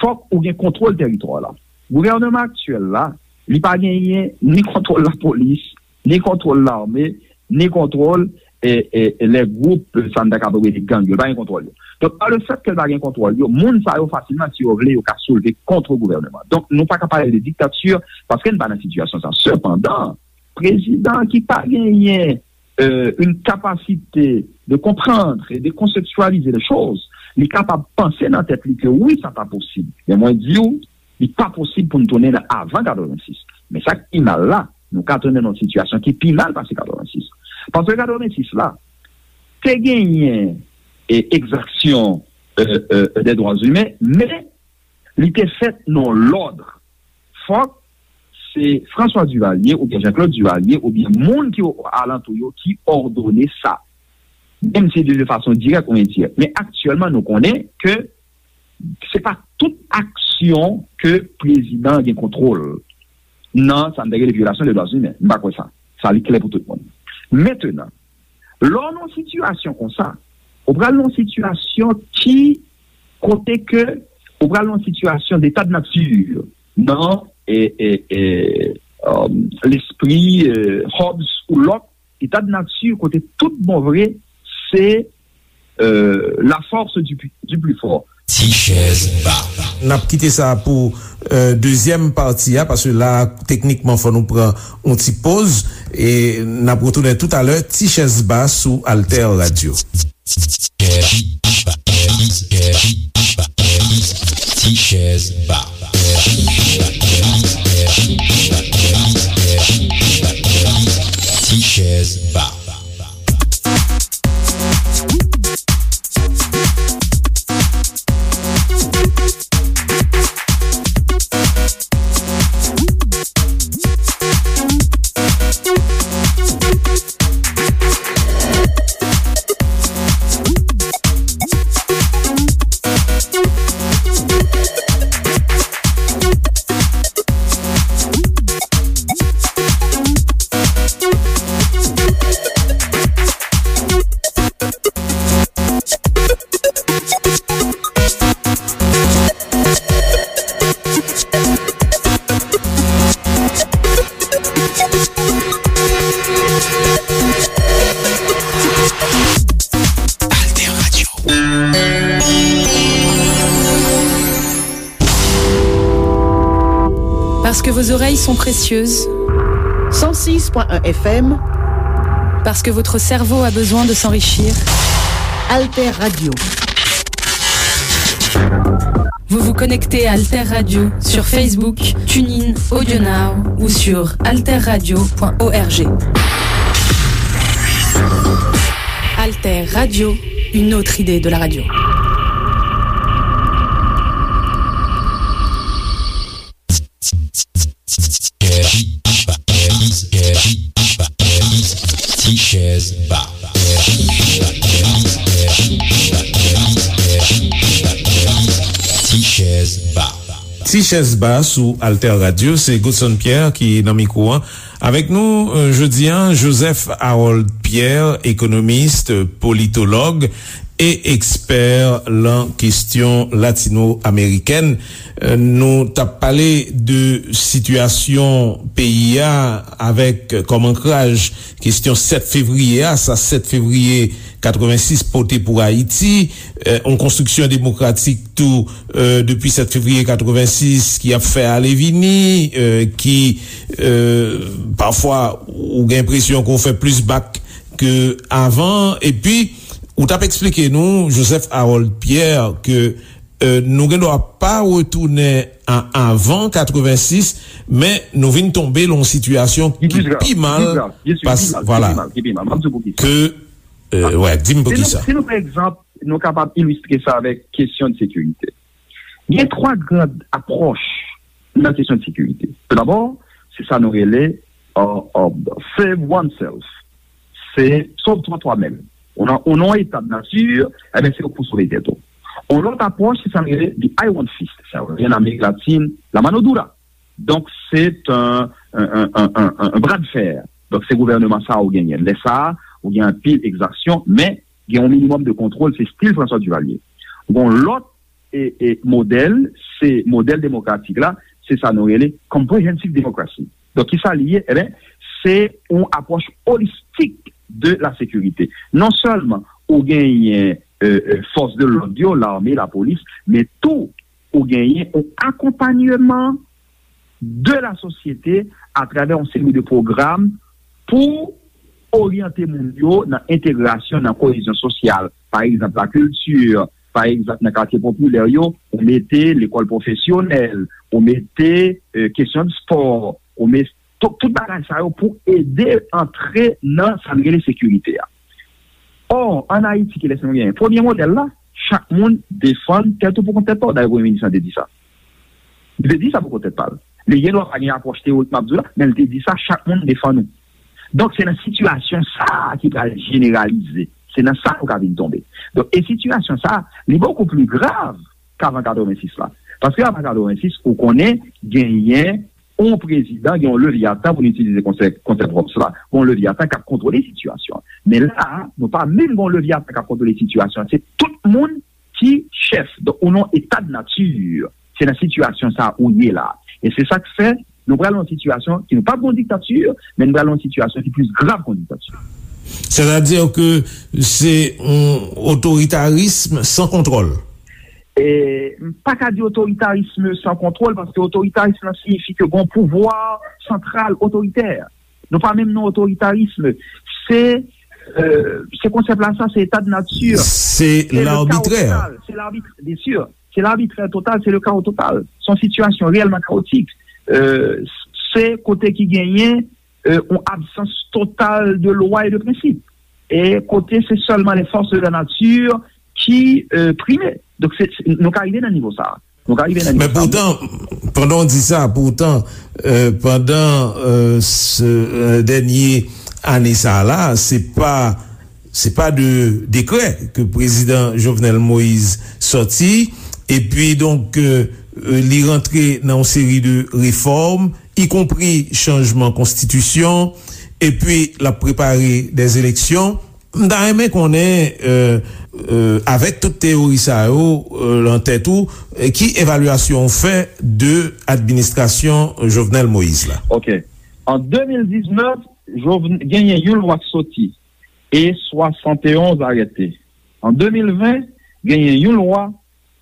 Fòk ou gen kontwòl tèritwa la. Gouvènman aktyèl la, li pa genyen ni kontwòl lapolis, ni kontwòl lame, ni kontwòl, eh, eh, les groupes, sa n ta kapab rele gang yo, li pa gen kontwòl yo. Donk, pa le fèt ke l pa gen kontwòl yo, moun sa yo fasilman, si yo vle, yo ka soulve kont gouvènman. Donk, nou pa ka pale de diktati paske n pa nan sitiyasyon sa. Sepandan, prezidan ki pa genyen, euh, une capacité de comprendre et de conceptualiser les choses, li kapab panse nan tèt li ke wi, sa pa posib. Men mwen di w, li pa posib pou n tounen nan avan katrevensis. Men sa k pi mal la, nou ka tounen nan yon sitiyasyon ki pi mal pase katrevensis. Paske katrevensis la, te genyen, e, egzaksyon, euh, euh, des droits humains, men li te fèt nan lòd. Fòk se François Duvalier oubyen Jean-Claude Duvalier oubyen moun ki alantou yo ki òdone sa. Menm si de fason dirèk ou endirèk. Men aktyèlman, nou konnen ke se pa tout aksyon ke prezidan gen kontwòl nan sa n te rele vyolasyon de dwa imen. M pa kwè sa. Sa li klè pou tout moun. Mentnan, lè w nan yon sitiyasyon konsa, ou pral nan yon sitiyasyon ki, kote ke ou pral nan yon sitiyasyon d'état de nature, nan, e, e, e, euh, lespri, euh, Hobbes ou Locke, état de nature kote tout bon vre, se, euh, la force du, pu- du plus fort. Ti chèz ba. N ap kite sa pou, euh, dezyèm pati a, paske la, teknikman, fò nou pran yon ti poz, e n ap retounen toutalè, Ti chèz ba sou Alter Radio. Ti chèz ba. Ti chèz ba. Parce que vos oreilles sont précieuses. Cent six point un F M. Parce que votre cerveau a besoin de s'enrichir. Alter Radio. Vous vous connectez à Alter Radio sur Facebook, TuneIn, AudioNow ou sur alterradio point org. Alter Radio, une autre idée de la radio. Ti chèz ba. Ti chèz ba. Ti chèz ba sou Alter Radio, se Godson Pierre ki nan mikwo an. Avèk nou, euh, jodi a, Joseph Harold Pierre, ekonomis, politològ e ekspè lan kesyon latino-amerikèn. Euh, nou t ap pale de sitiyasyon peyi a avèk kòm ankraj kesyon sèt fevriye a, sa sèt fevriye katrevensis pote pou Ayiti, euh, yon konstriksyon demokratik tou, euh, depi sèt fevriye katrevensis ki ap fè ale vini, euh, ki, euh, pafwa ou gen enpresyon ke w fè plis bak ke avan. Epi, ou t ap eksplike nou, Joseph Harold Pierre, ke, euh, nou gen dwa pa retounen a avan katrevensis, men nou vin tonbe lan yon sitiyasyon ki pi mal, pas, vwala, ke, euh, wè, di m poukisa. Si nou, si nou pran egzanp, nou kapab ilistre sa avèk kesyon de sekirite. Gen twa gran apwòch nan kesyon de sekirite. Toudabò, se sa nou rele, euh, euh, save oneself. Se sove twa twa menm. Ou nan, ou nan yon eta de nati, ebyen, se ou pou sove tèt ou. Yon lòt apwòch, se sa nou rele the iron fist. Sa yo rele an Amerik Latin, la mano dura. Donk, se yon, yon, yon, yon, yon, yon bra de fè. Donk, se gouvènman sa a ou genyen. Lè sa a, ou gen anpil egzaksyon, men gen yon minimòm de kontwòl, se stil François Duvalier. Gon lòt e, e modèl, se modèl demokratik la, se sa nou rele comprehensive democracy. Donk, kisa li ye? Eben, se yon apwòch olistik de la sekirite. Non sèlman ou genyen, euh, euh, fòs de lòd yo, lame, lapolis, men tou ou genyen yon akonpanyeman de la sosyete atravè yon seri de pwogram pou oryante moun yo nan entegrasyon, nan koyezyon sosyal. Pa egzanp, lakilti, pa egzanp, nan katye popilè yo, ou mete lekòl pwofesyonèl, ou mete, euh, kesyon de spò, ou mete tout, tout bagay sa yo pou ede antre nan sa n rele sekirite a. Ò, ann Ayiti, kilès nou genyen? Premye modèl la, chak moun defann tèt ou pou kont tèt pa w. Dayè, Premye Minis lan te di sa. Li te di sa pou kont tèt pa l. Li gen dwa pa gen apwòch teyorik m ap di w la, men li te di sa, chak moun defann ou. Donk, se nan sitiyasyon sa a ki pral jeneralize. Se nan sa nou ka vin tonbe. Donk, e sitiyasyon sa a, li bokou pli grav k avan katrevensis la. Paske avan katrevensis, ou konnen, genyen yon prezidan, gen yon leviyatan, pou n itilize konsèp, konsèp Hobbes la, gen yon leviyatan k ap kontwole sitiyasyon an. Men la a, nou pa menm gen yon leviyatan k ap kontwole sitiyasyon an. Se tout moun ki chèf. Donk, ou nan eta de nati. Se nan sitiyasyon sa a ou ye la. E se sa k fè nou pral nan yon sitiyasyon ki nou p ap gen yon diktati, men nou pral nan yon sitiyasyon ki plis grav ke yon diktati. Sètadi ke se yon otoritarism san kontwòl. E, m pa ka di otoritarism san kontwòl, paske otoritarism lan siyifi ke gen yon pouvwa santral otoritè. Nou pa menm nan otoritarism. Se, euh, se konsèp la sa, se eta de nati. Se labitrè. Se labitrè, byen si. Se labitrè total, se le kawo total. Se yon sitiyasyon reyèlman kawotik. Euh, se kote ki genyen, euh, yon absans total de lwa e de prensip. E kote se sèlman les forces de la nature ki, euh, prime. Donk, se, se, nou ka rive nan nivo sa a. Nou ka rive nan nivo sa a. Men poutan, pandan w di sa, poutan, euh, pandan, euh, se, euh, dènye ane sa a la, se pa, se pa de dekrè ke prezidan Jovenel Moïse sòti, epi donk, euh, euh, li rantre nan yon seri de refòm, ikonpri chanjman konstitisyon, epi l ap prepare dè eleksyon. M ta renmen konnen, euh, euh, avèk tout teyori sa yo, euh, lan tèt ou, euh, ki evalyasyon w fè de administrasyon Jovenel Moïse la? Ok. An de mil diznèf, Jovn-, genyen yon lwa k soti e swasanteonz arete. An de mil ven, genyen yon lwa,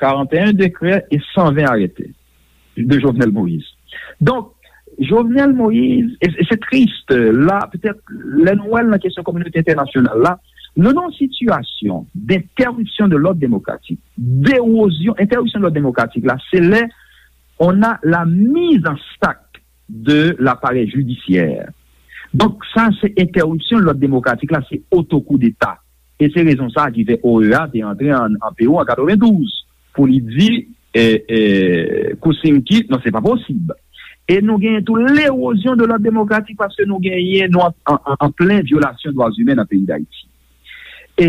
karanteyen dekrè e san ven arete de Jovenel Moïse. Donk, Jovenel Moïse, e, e se tris, la, petèt, lè nou wè l nan kesyon kominote entènasyonal la, nou nan yon sitiyasyon d'interruption de l'ordre démocratique, d'érosion, interruption de l'ordre démocratique la, se lè on a la mise en sac de l'appareil judiciaire. Donk, sa se entèripsyon lòd demokratik la, se oto koudeta. E se rezon sa a ki fè O E A te antre an, an Pewou an katrevendouz pou li di, e, e, Kuczynski, non, se pa posib. E nou genyen tou l'érozyon de lòd demokratik paske nou genyen, nou an, an, an, an plen vyolasyon dwa imen nan peyi Dayiti. E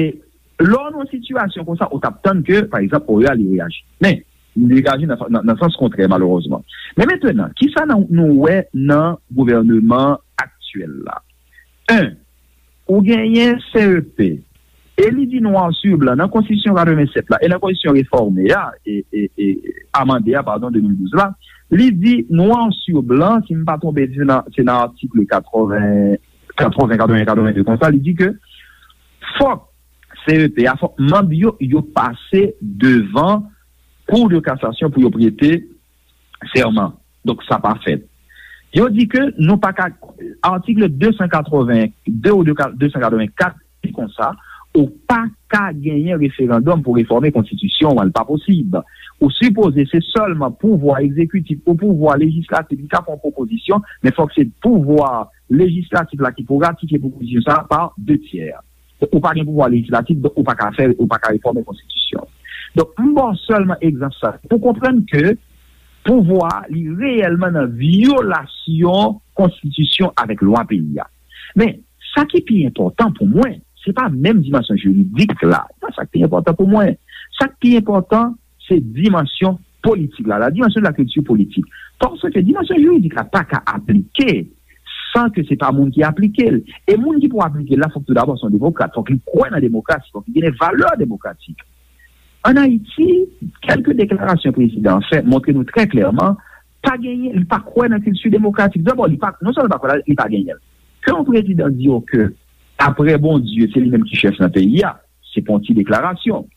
lè w nan yon sitiyasyon konsa, ou t ap tann ke, pa egzanp, O E A li reyaji. Men, li reyaji nan, nan, nan sans kontrè, malerezman. Men mentnan, kisa nan, nou wè nan gouvèneman aktyèl la? En, ou genyen C E P, e li di noir sur blanc nan konstitisyon katrevennsèt la, e nan konstitisyon refòme a, e, e, e amande a, padon, de mil douz la, li di noir sur blanc, si m pa twonpe, se nan, se nan atik katreven, katreven, katreven, katreven de konsa, li di ke fòk C E P a, fòk manm yo, yo pase devan Cour de cassation pou yo prete sèman. Donk, sa pa fèt. Yo di ke nou pa ka, atik de san katreven de ou de san katreven kat di konsa, ou pa ka genyen referandòm pou refòme konstitisyon an, li pa posib. Ou sipoze se sèlman pouvwa egzekitif ou pouvwa lejislatif ki ka fè yon pwopozisyon, men fòk se pouvwa lejislatif la ki pou ratifye pwopozisyon sa a pa de tyè. Donk, ou pa gen pouvwa lejislatif, donk ou pa ka fè, ou pa ka refòme konstitisyon. Donk, m ba w sèlman egzanp sa pou konprann ke pouvwa li reyèlman nan vyolasyon konstitisyon avèk lwa peyi a. Men, sa ki pi enpòtan pou mwen, se pa menm dimansyon jiridik la. Se pa sa ki pi enpòtan pou mwen. Sa ki pi enpòtan, se dimansyon politik la, la dimension de la culture politique. Paske dimansyon jiridik la pa ka aplike san ke se pa moun ki aplike l. E moun ki pou aplike l la, fòk tou dabò se yon demokrat, fòk li kwè nan demokrasi, fòk li gen de valè demokratik. Ann Ayiti, kèlke deklarasyon prezidan an fè montre nou trè klèman, pa genyen, li pa kwè nan kilti demokratik. Dabò, li pa, non sèlman li pa kwè la, li pa genyen l. Ke yon prezidan di w ke, apre Bondye, se li menm ki chèf nan peyi a, se pa yon ti deklarasyon.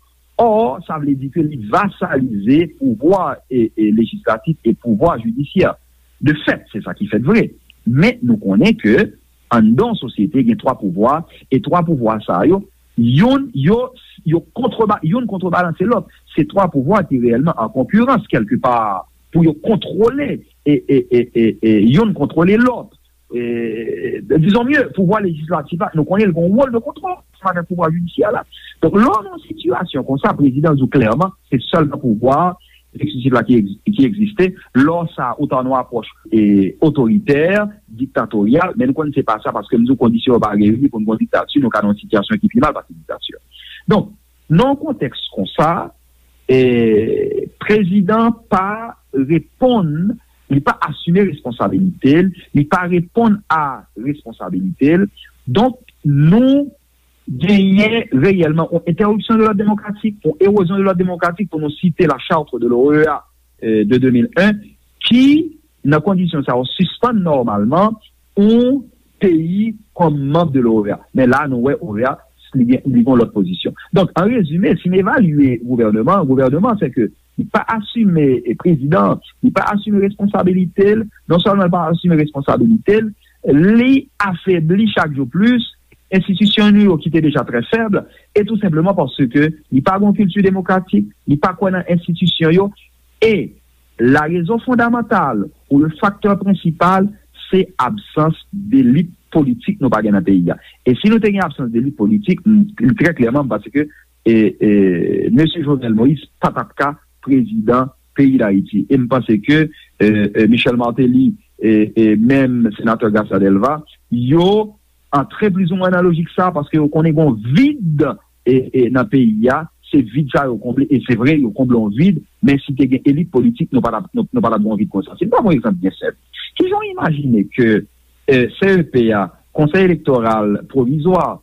Ò, sa vle di ke li vasalize pouvwa e, e lejislatif e pouvwa jidisyè. De fèt, se sa ki fèt vre. Men nou konnen ke anndan yon sosyete gen twa pouvwa, e twa pouvwa sa yo, youn, yo, yo kontreba-, youn kontrebalanse lòt. Se twa pouvwa ki reyèlman an konkirans kèlkepa pou yo kontwole, e, e, e, e, e youn kontwole lòt. E, dizon mye, pouvwa lejislatif la, nou konnen l gen yon wòl de kontwòl ansanm avèk pouvwa jidisyè la. Donk, lè w nan yon sitiyasyon konsa, prezidan di w klèman, se sèlman pouvwa egzekitif la ki egz-, ki egziste. Lè w sa, ou ta nan yon apwòch, e, otoritè, diktatoryal, men nou konnen se pa sa, paske m di w kondisyon yo pa reyini pou n gen yon diktati, nou ka nan yon sitiyasyon ki pi mal pase diktati. Donk, nan yon kontèks konsa, e, prezidan pa reponn, li pa asime responsabilite l, li pa reponn a responsabilite l. Donk, nou genyen reyèlman yon entèripsyon de lòd demokratik, yon erozyon de lòd demokratik, pou nou site la charte de l'O E A, e, de de mil en, ki, nan kondisyon sa yo, sispann nòmalman yon peyi kòm manm de l'O E A. Men la, nou wè O E A, li gen, li gen lòt pozisyon. Donk, an rezime, si n evalye gouvèneman, gouvèneman, se ke li pa asime, e, prezidan, li pa asime responsabilite l, non sèlman li pa asime responsabilite l, li afebli chak jou plis, enstitisyon nou yo ki te deja trè fèb, e tou senpleman paske li pa gen yon kilti demokratik, li pa kwè nan enstitisyon yo, e la rezon fondamantal ou le faktè prensipal, se absans delit politik nou pa gen nan peyi a. E si nou te gen absans delit politik, m, m, trè klèman, m panse ke, e, e, mesye Jovenel Moïse pa t ap ka prezidan peyi Dayiti. E m panse ke, e, e, Michel Martelly, e, e menm senatè Garcia Delva, yo antre plizoumwen nan lojik sa, paske yo konnen gen yon vid, e, e, nan peyi a, se vid sa yo konble, e se vre, yo konble yon vid, men si te gen elit politik, nou pa t ap, nou, nou pa t ap gen yon vid konsa. Si n pran yon egzanp byen senp, kijan w imajine ke, e, C E P a, Conseil électoral provisoire,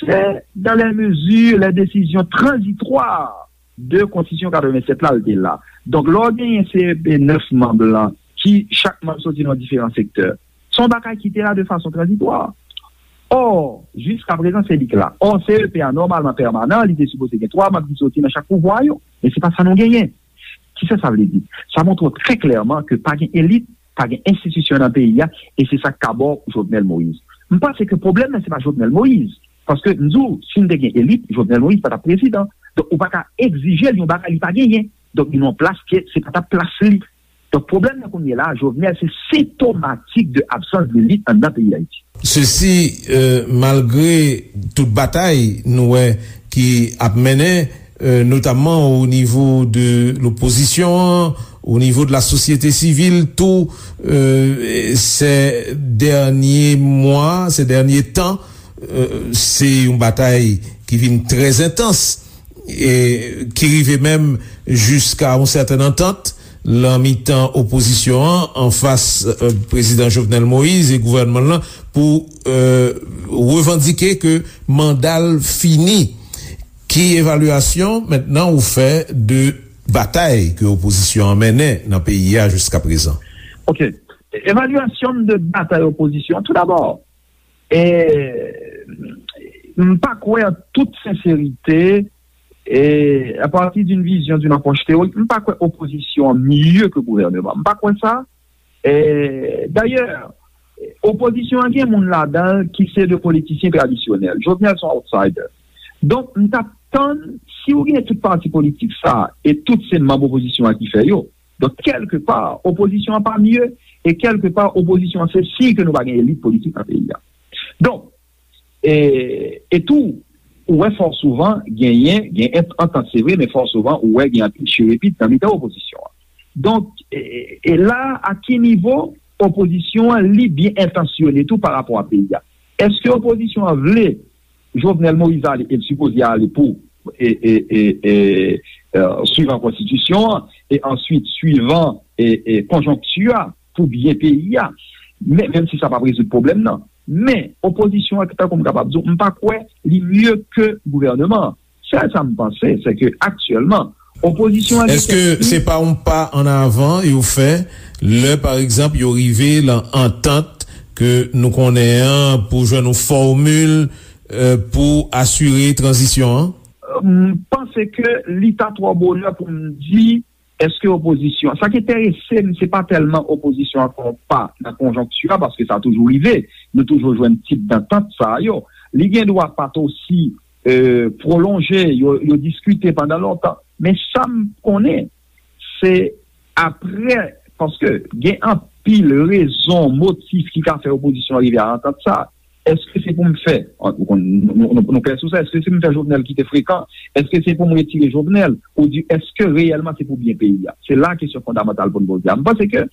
c'est dans les mesures, les décisions transitoires de Constitution quatre-vingt-sept la, l te la. Donk, lè w genyen C E P nèf manm lan, ki chak manm soti nan diferan sektè, se yon bagay ki te la de fason tranzitwa. Ò, jiska prezan, se li k la. Ò, C E P a, nòmalman pèmanan, li te sipoze gen twa manm ki soti nan chak pouvwa yo. Men se pa sa nou genyen. Kisa sa vle di? Sa montre w trè klèman ke pa gen elit pa gen enstitisyon nan peyi a, e se sa k ka ba w Jovenel Moïse. M panse ke pwoblèm nan, se pa Jovenel Moïse. Paske m di w, si n te gen elit, Jovenel Moïse pa t ap prezidan. Donk, ou pa ka egzije l yon bagay li pa genyen. Donk, li nan yon plas ke se pa t ap plas li. Donk, pwoblèm nan kounye la, Jovenel, se sentomatik de absans de lit anndan peyi Dayiti. Sesi, euh, malgre tout batay nou wè ki ap mennen, euh, notamman o nivo de lopozisyon an, o nivo de la sosyete sivil tou, euh, ces derniers mois, ces derniers temps, euh, se yon batay ki vin trè entans e ki rive menm jiska yon sèten antant lan mitan opozisyon an anfas, euh, prezidan Jovenel Moïse e gouvènman l lan pou, euh, revandike ke manda l fini. Ki evalyasyon mentnan ou fè de batay ke opozisyon an mennen nan peyi a jiska prezan? Ok. Evalyasyon m de batay opozisyon, tou dabò, e, m pa kwè an tout senserite, e, à partir d'une vision, d'une approche théorique, m pa kwè opozisyon an mye ke gouvènman. M pa kwè sa. E, dayè, opozisyon an gen moun ladan l ki se de politisyen tradisyonèl. Jovenel se yon outsider. Donk, m t ap tann, si w gen tout pati politik sa, e tout se manm opozisyon an ki fè yo, donk, kèlkepa, opozisyon an pa mye, e kèlkepa, opozisyon an se siy ke nou pa gen elit politik nan peyi a. Donk, e, e tou, ou wè fò souvan genyen, gen ant-, antant se vre, men fò souvan ou wè gen anpil chirepit nan mitan opozisyon an. Donk, e, e la, a ki nivo opozisyon an, li byen entansyone tou pa rapò a peyi a? Èske opozisyon an vle Jovenel Moïse ale, e l sipoze ale pou, e, e, e, e, e, swivan konstitisyon an, e answit swivan, e, e, konjonkti a, pou byen peyi a. Men, menm si sa p ap rezoud pwoblèm nan. Men, opozisyon an, tankou m kapab di w, m pa kwè li mye ke gouvènman an. Sèl sa m panse, se ke aktyèlman, opozisyon an gen Èske kèk se pa yon pa an avan yo fè lè, pa egzanp, yo rive lan antant ke nou konnen an pou jwenn yon fòmil, euh, pou asire tranzisyon an? M panse ke li ta twò bonè pou m di èske opozisyon. Sa k enterese m, se pa tèlman opozisyon an fè yon pa nan konjonkti a, paske sa toujou rive. Nou toujou jwenn tip dantant sa yo. Li gen dwa pa t osi, euh, pwolonje, yo, yo diskite pandan lontan. Men sa m konnen, se apre, paske gen anpil rezon, motif ki ka fè opozisyon an rive a antant sa. Èske se pou m fè, nou, nou, nou, nou klè sou sa, èske se pou m fè Jovenel kite frekan? Èske se pou m retire Jovenel? Ou di, èske reyèlman se pou byen peyi a? Se la kesyon fondamantal pou n poze a. M panse ke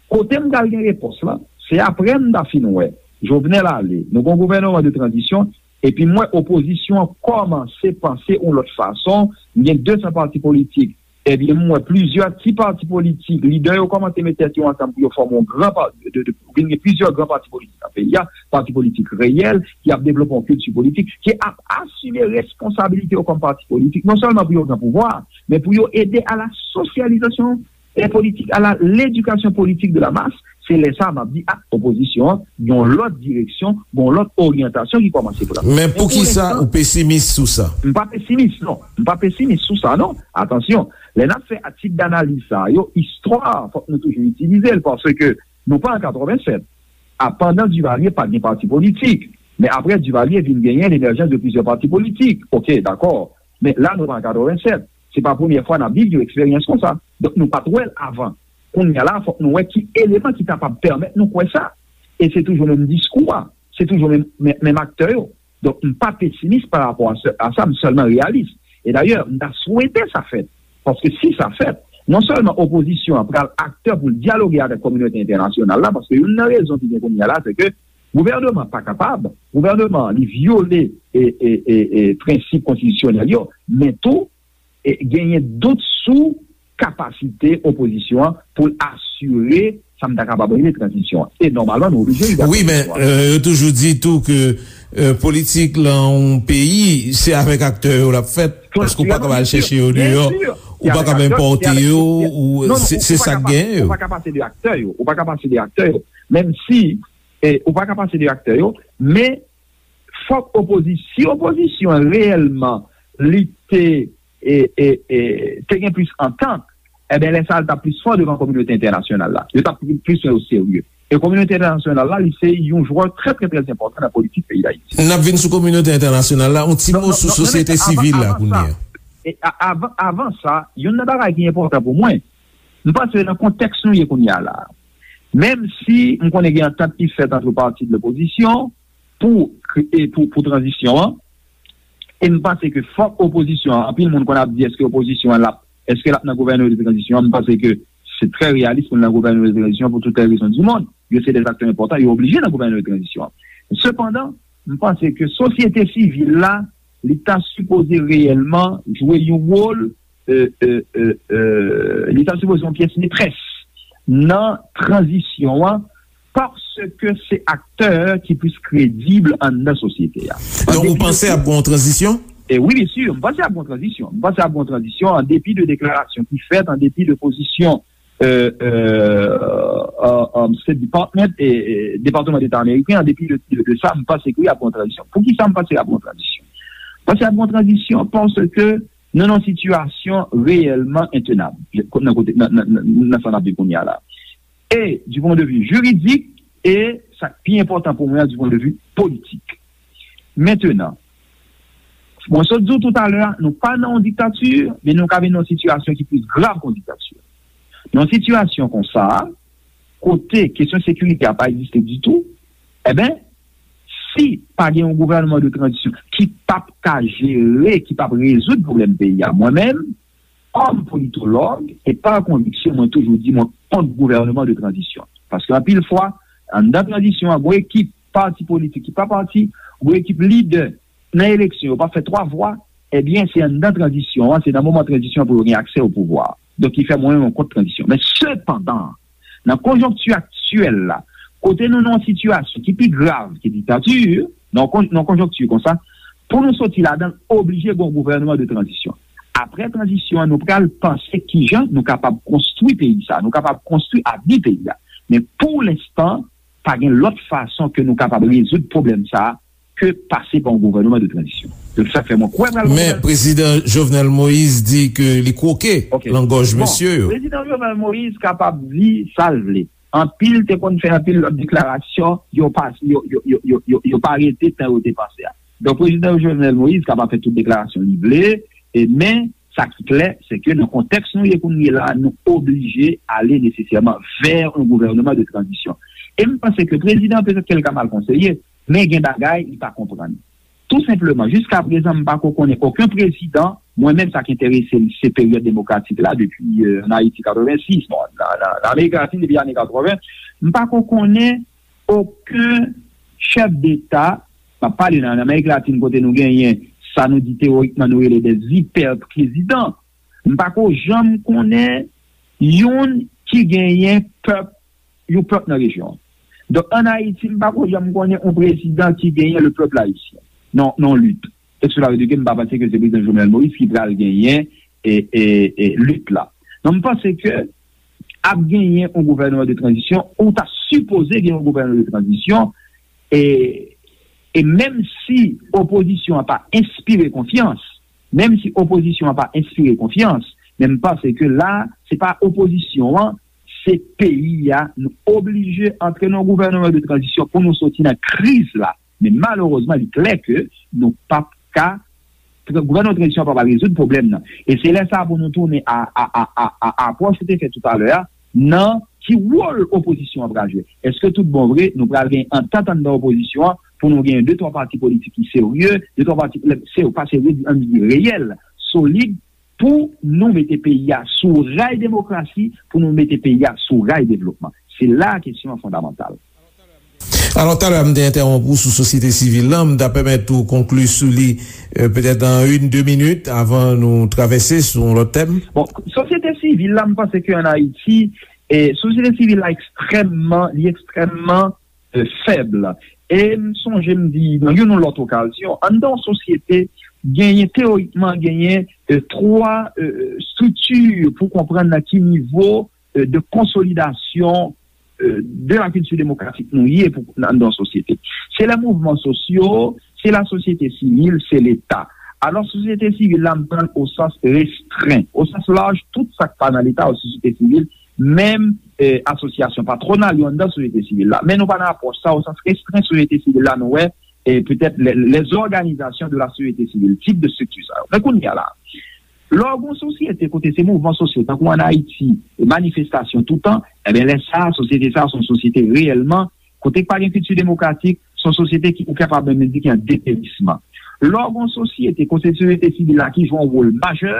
kote m pral gen repons lan, se apre m ta fin wè Jovenel ale, nou gon gouvènman de tranzisyon, epi m wè opozisyon an kòmanse panse yon lòt fason, m gen de san pati politik, ebyen, m wè plizyè ti pati politik, lidè yo kòmanse met tèt yo ansanm pou yo fòme yon gran pa-, de, de, vin gen plizyè gran pati politik nan peyi a, pati politik reyèl, ki ap devlope yon kilti politik, ki ap asime responsabilite yo kòm pati politik, non sèlman pou yo gen pouvwa, men pou yo ede a la sosyalizasyon e politik, a la ledikasyon politik de la mas. Se lè sa a m ap di, a, opozisyon an, yon lòt direksyon, yon lòt oryantasyon ki kòmanse pran. Men poukisa ou pesimis sou sa? M pa pesimis, non. M pa pesimis sou sa, non. Atansyon, lè n ap fè tip danaliz sa yo, istwa, fòk nou toujou itilize l, paske nou pa an katrevennsèt. A, pandan Duvalier, pa t gen pati politik. Men apre Duvalier vin genyen lemèjans de plizyè pati politik. Oke, dakò. Men la, nou pa an katrevennsèt. Se pa premyè fwa n ap viv yon eksperyans konsa. Donk, nou pa t wè l avan. Kounye a la, fòk nou wè ki eleman ki kapab pèmèt nou kwè sa. E se toujou menm diskou a. Se toujou menm, menm, menm aktè yo. Donk, m pa pesimis pa rapò a sa, a sa, m sèlman reyalis. E dayè, m ta swete sa fèt. Paske si sa fèt, non sèlman opozisyon an pral aktè pou l dyaloge avèk kominote entènasyonal la, paske youn nan rezon ki gen kounye a la, se ke gouvènman pa kapab, gouvènman li vyole e, e, e, e prensip konstitisyonèl yo, men tou, e, genyen dout sou kapasite opozisyon an pou l asire sa m ta kapab rele tranzisyon an. E nòmalman, nou oblije rive a tranzisyon an. Wi, men, euh, yo toujou di tou ke, euh, politik lan yon peyi, se avèk aktè yo l ap fèt, paske ou pa kapab al chèche yo deyò, ou pa kapab enpòte yo, ou, se, se sa k gen yo. Ou pa ka pase de aktè yo, ou pa ka pase de aktè yo. Menm si, e, ou pa ka pase de aktè yo, men fòk opozi-, si opozisyon an reyèlman li te, e, e, e, te gen plis antant, Ebyen, lè sa a, l t ap plis fò devan kominote entènasyonal la. Yo t ap plis pran yo serye. E kominote entènasyonal la, li se yon jwè trè, trè, trè enpòtan nan politik peyi Dayiti. N ap vin sou kominote entènasyonal la, yon ti mo sou sosyete sivil la kounye a. E a- avan, avan sa, youn nan bagay ki enpòtan pou mwen, m panse nan kontèks nou ye kounye a la, menm si m konnen gen antant ki fèt ant pati de lopozisyon pou, kre- e pou, pou tranzisyon an, e m panse ke fòk opozisyon an, anpil moun konn ap di èske opozisyon an l ap, èske l ap nan gouvènman de tranzisyon an, m panse ke se trè reyalis pou l nan gouvènman de tranzisyon pou tout lè rezon di mond. Yo se de aktè enpòtan, yo oblije nan gouvènman de tranzisyon an. Sepandan, m panse ke sosyete sivil la, li ta sipoze reyèlman jwe yon wòl, e, e, e, e, li ta sipoze yon pyès metrès nan tranzisyon an, paske se aktè ki plis kredib anndan sosyete a. Donk, ou panse ap gen yon tranzisyon? E wi, byen si, m panse ap gen yon tranzisyon. M panse ap gen yon tranzisyon an depi de deklarasyon ki fèt, an depi de pozisyon, e, e, e, e, State Department, e, e, Depatman Deta ameriken, an depi de, de, de sa, m panse ke wi, ap gen yon tranzisyon. Poukisa m panse ap gen yon tranzisyon? M panse ap gen yon tranzisyon paske nou nan yon sitiyasyon reyèlman entenab nan kote, nan, nan, nan, nan sa n ap viv kounye a la. E, du point de vue juridik, e sa k pi enpòtan pou mwen an, du point de vue politik. Mentenan, mwen sot di w toutalè a, nou pa nan yon diktati, men nou ka vin nan yon sitiyasyon ki plis grav ke yon diktati. Nan yon sitiyasyon konsa, kote kesyon sekirite a pa egziste ditou, enben, si pa gen yon gouvènman de tranzisyon ki p ap ka jere, ki p ap rezoud pwoblèm peyi a, mwen menm, kòm politològ, e pa konviksyon, mwen toujou di mwen kont gouvènman de tranzisyon. Paske anpil fwa, anndan tranzisyon an, gon ekip pati politik ki pa pati, gon ekip lidè nan eleksyon, yo pa fè twa vwa, ebyen, se anndan tranzisyon an, se nan moman tranzisyon an pou yo gen aksè o pouvwa. Donk, ki fè mwen menm mwen kont tranzisyon. Men sepandan, nan konjonkti aktyèl la, kote nou nan yon sitiyasyon ki pi grav ke diktati, nan yon kon- nan yon konjonkti konsa, pou nou soti ladan l, oblije gen yon gouvènman de tranzisyon. Apre tranzisyon an, nou pral panse kijan nou kapab konstwi peyi sa, nou kapab konstwi avni peyi a. Men pou lenstan, pa gen lòt fason ke nou kapab rezoud pwoblèm sa a ke pase pa yon gouvènman de tranzisyon. Donk, sa k fè mwen kwè pral gen Men, Prezidan Jovenel Moïse di ke li kwoke Ok. lan gòj Bon, mesye yo. Prezidan Jovenel Moïse kapab di sa l vle. Anpil te konn fè anpil lòt deklarasyon, yo pa, yo, yo, yo, yo, yo, yo pa rete tan yo te panse a. Donk, Prezidan Jovenel Moïse kapab fè tout deklarasyon li vle, e, men, sa ki klè, se ke nan kontèks nou ye kounye la, nou oblije ale nesesèman vè yon gouvènman de tranzisyon. E m panse ke prezidan, petèt ke l ka mal konseye, men gen bagay li pa konprann. Tou senpleman, jiska prezan, m pa ko konnen okenn prezidan, mwen menm, sa k enterese m, se peryòd demokratik la, depi, euh, ann Ayiti, katrevensis, bon, nan, nan, nan Amerik Latin, depi ane katreven, m pa ko konnen okenn chèf deta, m ap pale nan, nan Amerik Latin, kote nou genyen sa nou di teyorikman nou rele des hyper présidents. M pa ko janm konnen youn ki genyen pèp, yon pèp nan rejyon an. Donk, ann Ayiti, m pa ko janm konnen yon prezidan ki genyen le peuple haïtien. Non, non, lit. E sou la, m pa panse ke se prezidan Jovenel Moïse ki pral genyen e, e, e lit la. Donk, m panse ke ap genyen yon gouvènman de tranzisyon, ou ta sipoze gen yon gouvènman de tranzisyon, e, e menm si opozisyon an pa enspire konfyans, menm si opozisyon an pa enspire konfyans, men m panse ke la, se pa opozisyon an, se peyi a, nou oblije antre nan yon gouvènman de tranzisyon pou nou soti nan kriz la. Men malerezman, li klè ke nou p ap ka, gouvènman tranzisyon p ap rezoud pwoblèm nan. E se lè sa a pou nou tounen a, a, a, a, a apwòch ou te fè toutalè a, nan ki wòl opozisyon an pral jwe. Èske tout bon vre, nou pral gen antant anndan opozisyon an pou nou gen de twa pati politik ki serye, de twa pati, se, pa serye, ann di reyèl, solid, pou nou mete peyi a sou ray demokrasi, pou nou mete peyi a sou ray devlopman. Se la a kesyon an fondamantal. Alò, talè a, m te entèwonp ou sou sosyete sivil la, m ta pèmèt ou konkli sou li, euh, petèt an youn, de minit, avan nou travèse sou yon lòt tèm. Bon, sosyete sivil la, m panse ke ann Ayiti, e, sosyete sivil la ekstrèmman, li ekstrèmman, euh, fèb. E m sonje m di, nan youn ou lòt okazyon, anndan yon sosyete, genyen, teyorikman, genyen, euh, twa, euh, estrikti pou konprann nan ki nivo, euh, de konsolidasyon, euh, de la kilti demokratik nou ye pou, nan, nan sosyete. Se lè mouvman sosyo, se lasosyete sivil, se Leta. Alò, sosyete sivil la, m pran l o sans restren. O sans laj, tout sa k pa nan Leta, o sosyete sivil, menm eh, asosyasyon patwonal yo anndan sosyete sivil la. Men nou pa nan apwòch sa, o sans restren sosyete sivil la, nou wè, eh, petèt les, les organisations de la société civile, tip de strikti sa yo. Men kounye a la, lè w gen yon sosyete kote se mouvman sosyo, tankou ann Ayiti, e manifestasyon toutan, ebyen lè sa a, sosyete sa a se yon sosyete reyèlman kote k pa gen kilti demokratik, se yon sosyete ki ou kapab menm di ki an deperisman. Lè w gen yon sosyete kote sosyete sivil la ki jwe yon wòl majè,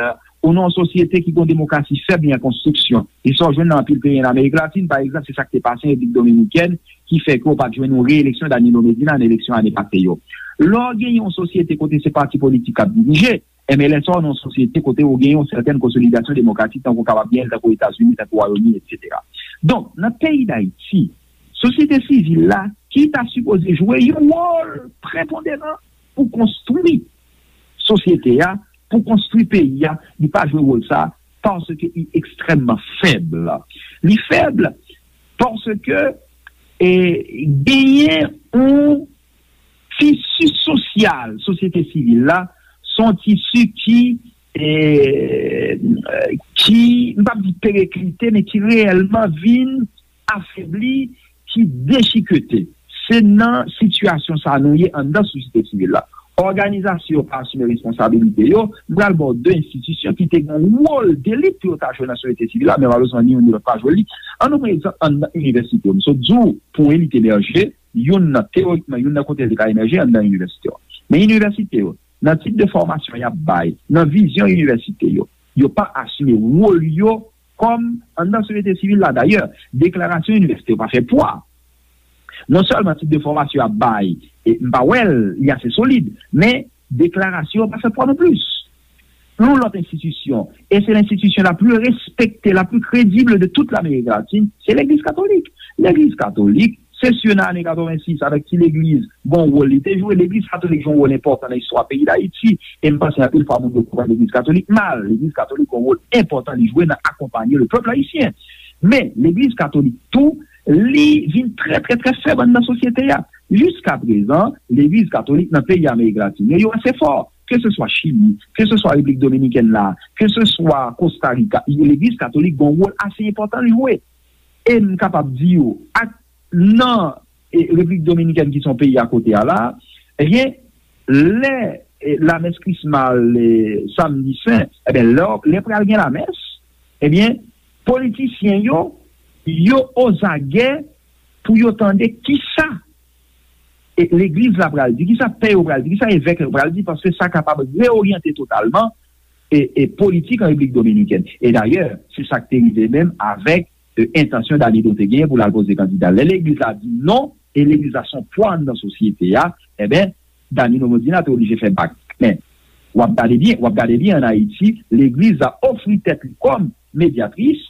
ou nan yon sosyete ki gen yon demokrasi fèb li an konstriksyon. E sa w jwenn nan anpil peyi ann Amerik Latin, pa egzanp, se sa k te pase an Repiblik Dominikèn, ki fè ke w pa t jwenn yon reyeleksyon Danilo Medina nan eleksyon ane pase yo. Lè w gen yon sosyete kote se pati politik k ap dirije, enben lè sa w nan yon sosyete kote w gen yon sètèn konsolidasyon demokratik tankou w kapab gen l tankou Etazini, tankou Wayòm Ini, etsetera. Donk, nan peyi Dayiti, sosyete sivil la, ki ta sipoze jwe yon wòl preponderan pou konstwi sosyete a, pou konstwi peyi a, li pa jwe wòl sa paske li ekstrèmman fèb. Li fèb paske e, genyen yon tisi sosyal sosyete sivil la, se yon tisi ki, e, ki, m p ap di pereklite, men ki reyèlman vin afebli, ki dechikete. Se nan sitiyasyon sa a nou ye anndan sosyete sivil la. Òganizasyon yo pa asime responsabilite yo. M pral ba w de enstitisyon ki te gen yon wòl delit pou yo ta jwe nan sosyete sivil la, men malerezman, ni youn ni lòt pa jwe li. Ann nou pran egzanp anndan inivèsite yo. M sot di w, pou elit emèje, youn nan, teyorikman, youn nan kote li ka emèje anndan inivèsite yo. Men inivèsite yo, nan tip de fòmasyon y ap bay, nan vizyon inivèsite yo, yo pa asime wòl yo kòm anndan sosyete sivil la. Dayè, deklarasyon inivèsite yo pa fè pwa. Non sèlman tip de fòmasyon y ap bay, e m pa wè l, li ase solid, men deklarasyon yo pa fè pwa non plis. Yon lòt enstitisyon, e se lenstitisyon la pli respekte, la pli kredib de tout Lamerik Latin, se Legliz Katolik. Legliz Katolik, se si nan ane katrevensis, avèk ti legliz, gen yon wòl li te jwe. Legliz Katolik jwe yon wòl enpòtan nan istwa peyi Dayiti, e m panse anpil fwa moun yo konprann Legliz Katolik mal. Legliz Katolik gen yon wòl enpòtan li jwe nan akonpanye le pèp ayisyen. Men, Legliz Katolik tou, li vin trè, trè, trè fèb anndan sosyete a. Jiska prezan, Legliz Katolik nan peyi Amerik Latin yo, yo ase fò. Ke se swa Chili, ke se swa Repiblik Dominikèn la, ke se swa Kosta Rika, Legliz Katolik gen yon wòl ase enpòtan li jwe. E m kapab di w, ak nan e, Repiblik Dominikèn ki se yon peyi akote a la, ebyen, lè e, lamès Krisma al e, Samdi Sen, ebyen, lè, lè pral gen lamès, ebyen, politisyen yo, yo ozagè pou yo tande kisa e, legliz la pral di, kisa pè yo pral di, kisa evèk yo pral di, paske sa kapab reoryante totalman e, e politik an Repiblik Dominikèn. E dayè, se sa k te rive menm avèk e, entansyon Danilo te genyen pou l al poze kandida. Lè legliz la di non, e legliz la se yon pwa anndan sosyete a, enben, Danilo Medina te oblije fè bak. Men, w ap gade byen, w ap gade byen ann Ayiti, legliz la ofri tèt li kòm medyatris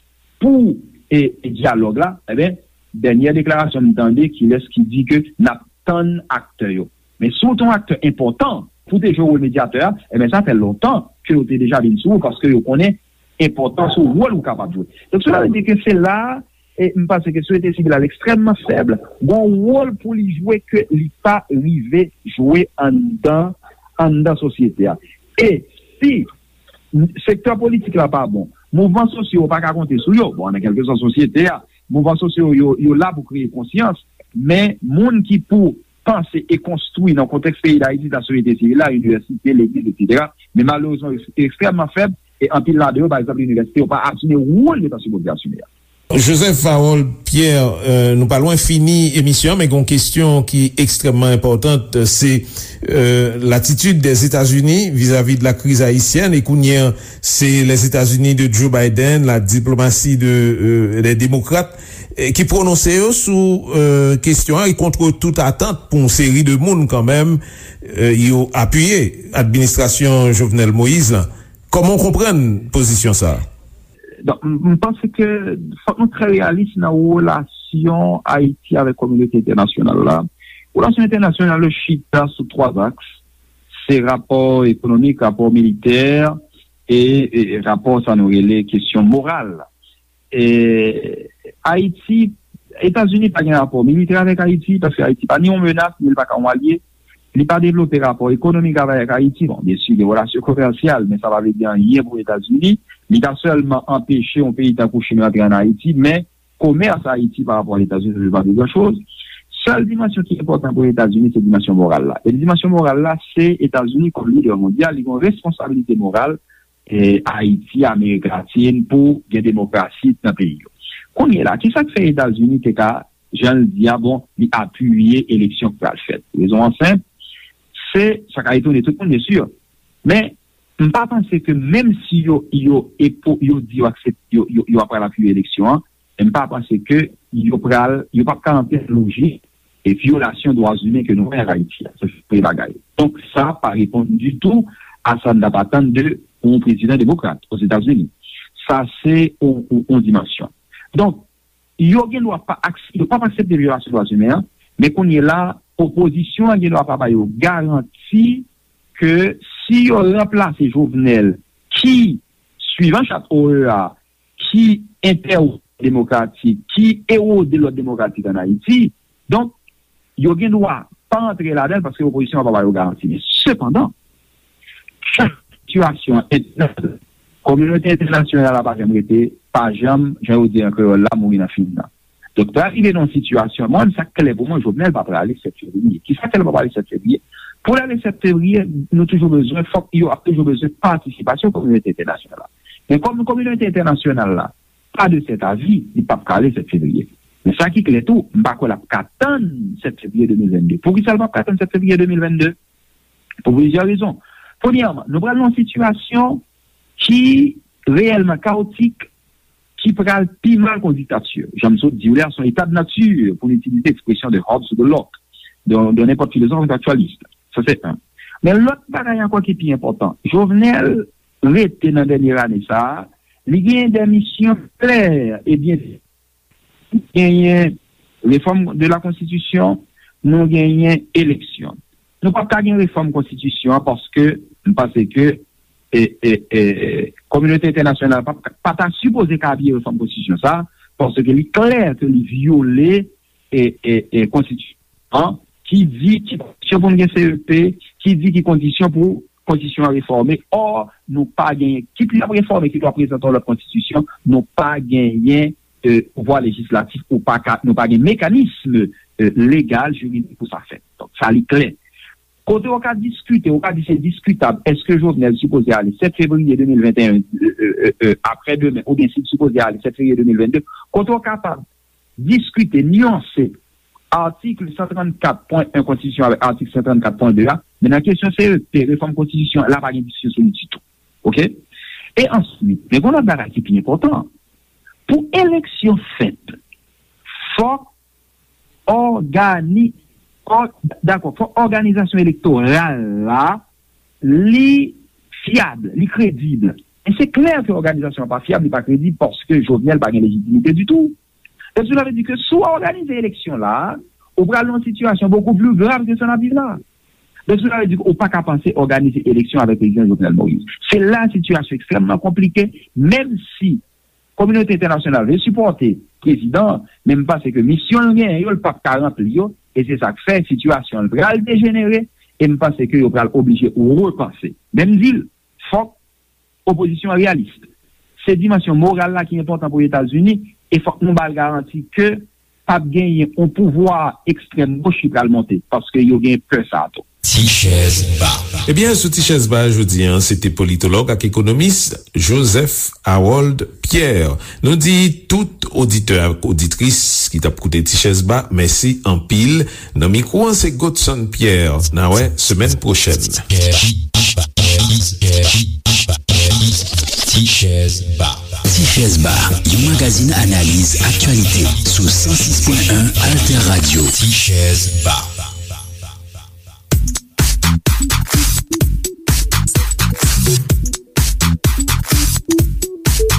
pou e, e dyalòg la, enben, dènyè deklarasyon m tande, kilès ki di ke n ap tann aktè yo. Men si w te yon aktè enpòtan pou te jwe wòl medyatè a, enben sa fè lontan ke yo te deja vin sou ou, paske yo konnen enpòtans ou, wòl ou kapab jwe. Donk, sela vle di ke se la, e m panse ke sosyete sivil la ekstrèmman fèb, gen yon wòl pou li jwe ke li pa rive jwe anndan, anndan sosyete a. E si sektè politik la pa bon, mouvman sosyo yo pa ka konte sou yo. Bon, nan kèlkeswa sosyete a, mouvman sosyo yo, yo la pou kreye konsyans, men moun ki pou panse e konstwi nan kontèks peyi Dayiti, sa sosyete sivil la, inivèsite, legliz, etsetera. Men malerezman, yo ekstrèmman fèb, e anpil ladan yo, pa egzanp, inivèsite, yo pa asime wòl yo ta sipoze asime a. Joseph Harold Pierre, euh, nou pa lwen fini emisyon an, men gen yon kesyon ki ekstrèmman enpòtan, se euh, latitid dèzetazini vizavi de la kriz ayisyèn, e kounye a se Lèzetazini de Joe Biden, la diplomasi de euh, lè demokrat, eh, ki pwononse yo sou euh, kesyon an, e kont tout atant pou yon seri de moun kanmenm, euh, yo apiye administrasyon Jovenel Moïse la. Kòman w konprann pozisyon sa a? Donk, m m panse ke fòk nou trè reyalis nan relasyon Ayiti avèk kominote entènasyonal la. Relasyon entènasyonal yo chita sou twa aks. Se rapò ekonomik, rapò militè, e, e rapò sa nou rele kesyon moral. E, Ayiti, Etazini pa gen rapò militè avèk Ayiti, paske Ayiti pa ni yon menas, ni l pa ka yon alye. li pa devlope rapò ekonomik avèk Ayiti. Bon, byen si, gen relasyon komèsyal, men sa pa vle di anyen pou Etazini. Li ta sèlman anpeche yon peyi tankou Chin rantre ann Ayiti, men komès Ayiti pa rapò a Etazini, se pa de gran choz. Sèl dimansyon ki enpòtan pou Etazini, se dimansyon moral la. E dimansyon moral la, se Etazini kòm lidè mondyal, li gen yon responsabilite moral e Ayiti, Amerik Latin, pou gen demokrasi nan peyi yo. Kounye la, ki sa k fè Etazini te ka, jan l di a, bon, li apiye eleksyon k pral fèt? Rezon an senp, se, sa ka etone tout moun, byen si, men m pa panse ke menm si yo, yo, epo, yo di yo aksepte, yo, yo, yo ap pral apiye eleksyon an, men m pa panse ke yo pral, yo p ap ka antre nan lojik e vyolasyon dwa imen ke nou wè an Ayiti a. Se premye bagay. Donk, sa pa reponn ditou a sa n t ap atann de yon prezidan demokrat Ozetazini. Sa se yon, yon, yon dimansyon. Donk, yo gen dwa pa, yo p ap aksepte vyolasyon dwa imen an, men kounye la, opozisyon an gen dwa pa ba yo garanti ke si yo ranplase Jovenel, ki, swivan chat O E A, ki entèwòd demokratik, ki erode lòd demokratik ann Ayiti. Donk, yo gen dwa pa antre ladan l paske opozisyon an pa ba yo garanti. Men sepandan, jan sitiyasyon an entènal, kominote entènasyonal la pa janm rete, pa janm, jan yo di an kreyòl la, mouri nan fim nan. Donk, pral rive nan yon sitiyasyon, mwen, sa k klè pou mwen, Jovenel pa prale sèt fevriye. Ki sa k fè l pa prale sèt fevriye? Pou l ale sèt fevriye, nou toujou bezwen, fòk yo ap toujou bezwen patisipasyon kominote entènasyonal la. Men kòm kominote entènasyonal la pa de sèt avi, li p ap ka ale sèt fevriye. Men sa ki klè tou, m pa kwè l ap ka tann sèt fevriye de mil vennde. Poukisa l p ap ka tann sèt fevriye de mil vennde? Pou plizyè rezon. Premyèman, nou pral nan yon sitiyasyon ki reyèlman kawotik, ki pral pi mal ke yon diktati. Jan m sot di w la, se yon état de nature, pou n itilize ekspresyon de Hobbes ou de Locke, de, de nenpòt filozòf entèlektyèlis. Sa se youn. Men lòt bagay ankò ki pi enpòtan, Jovenel rete nan dènye ane sa a, li genyen de misyon klè e byen genyen refòm de la konstitisyon, nou genyen eleksyon. Nou p ap ka gen refòm konstitisyon an paske m panse ke e, e, e, kominote entènasyonal pa, pa ta sipoze ka apiye refòm konstitisyon sa, paske li klè ke li vyole e, e, e, konstitisyon an, ki di ki kondisyon pou n gen C E P, ki di ki kondisyon pou konstitisyon an refòme. Ò, nou pa genyen, kit l ap refòme, kit l ap prezante yon lòt konstitisyon, nou pa genyen e, pouvwa lejislatif, ou pa ka, nou pa gen mekanism e, legal, jiridik pou sa fèt. Donk, sa li klè. Kote w ka diskite, w ka di se diskitab, èske Jovenel sipoze ale sèt fevriye de mil venteyen, e, e, e, e, aprè demen, oubyen si l sipoze ale sèt fevriye de mil vennde, kote w kapab diskite, nyanse atik san trannkat pwen en konstitisyon avèk atik san trannkat pwen de a, men nan kesyon C E P, refòm konstitisyon, la pa gen diskisyon sou li ditou. Oke? E answit, men gen yon lòt bagay ki pi enpòtan. Pou eleksyon fèt, fòk ògani, ò, dakò, fòk òganizasyon elektoral la, li fyab, li kredib. E se klè ke òganizasyon an pa fyab, li pa kredib, paske Jovenel pa gen lejitimite ditou. Donk, sa vle di ke si w òganize eleksyon la, ou pral nan yon sitiyasyon bokou pli grav ke sa n ap viv la. Donk, sa vle di ke ou pa ka panse òganize eleksyon avèk prezidan Jovenel Moïse. Se la sitiyasyon ekstrèmman konplike, menm si kominote entènasyonal vle sipòte prezidan an, men m panse ke misyon l genyen yo, l p ap ka ranpli yo, e se sa k fè sitiyasyon an pral dejenere, e m panse ke yo pral oblije repanse. Men m di l, fòk opozisyon an reyalis. Se dimansyon moral la ki enpòtan pou Etazini, e fòk nou ba l garanti ke p ap genyen yon pouvwa ekstrèm goch ki pral monte, paske yo gen pè sa a tou. Ti chèz ba. Ebyen, sou Ti chèz ba jodi a, se te politològ ak ekonomis Joseph Harold Pierre. Nou di tout oditè ak oditris ki t ap koute Ti chèz ba, mèsi anpil. Nan mikwo an, se Godson Pierre. N a wè semèn pwochèn. Ti chèz ba. Ti chèz ba, yon magazin analiz aktyalite sou san sis pwen en Alter Radio. Ti chèz ba.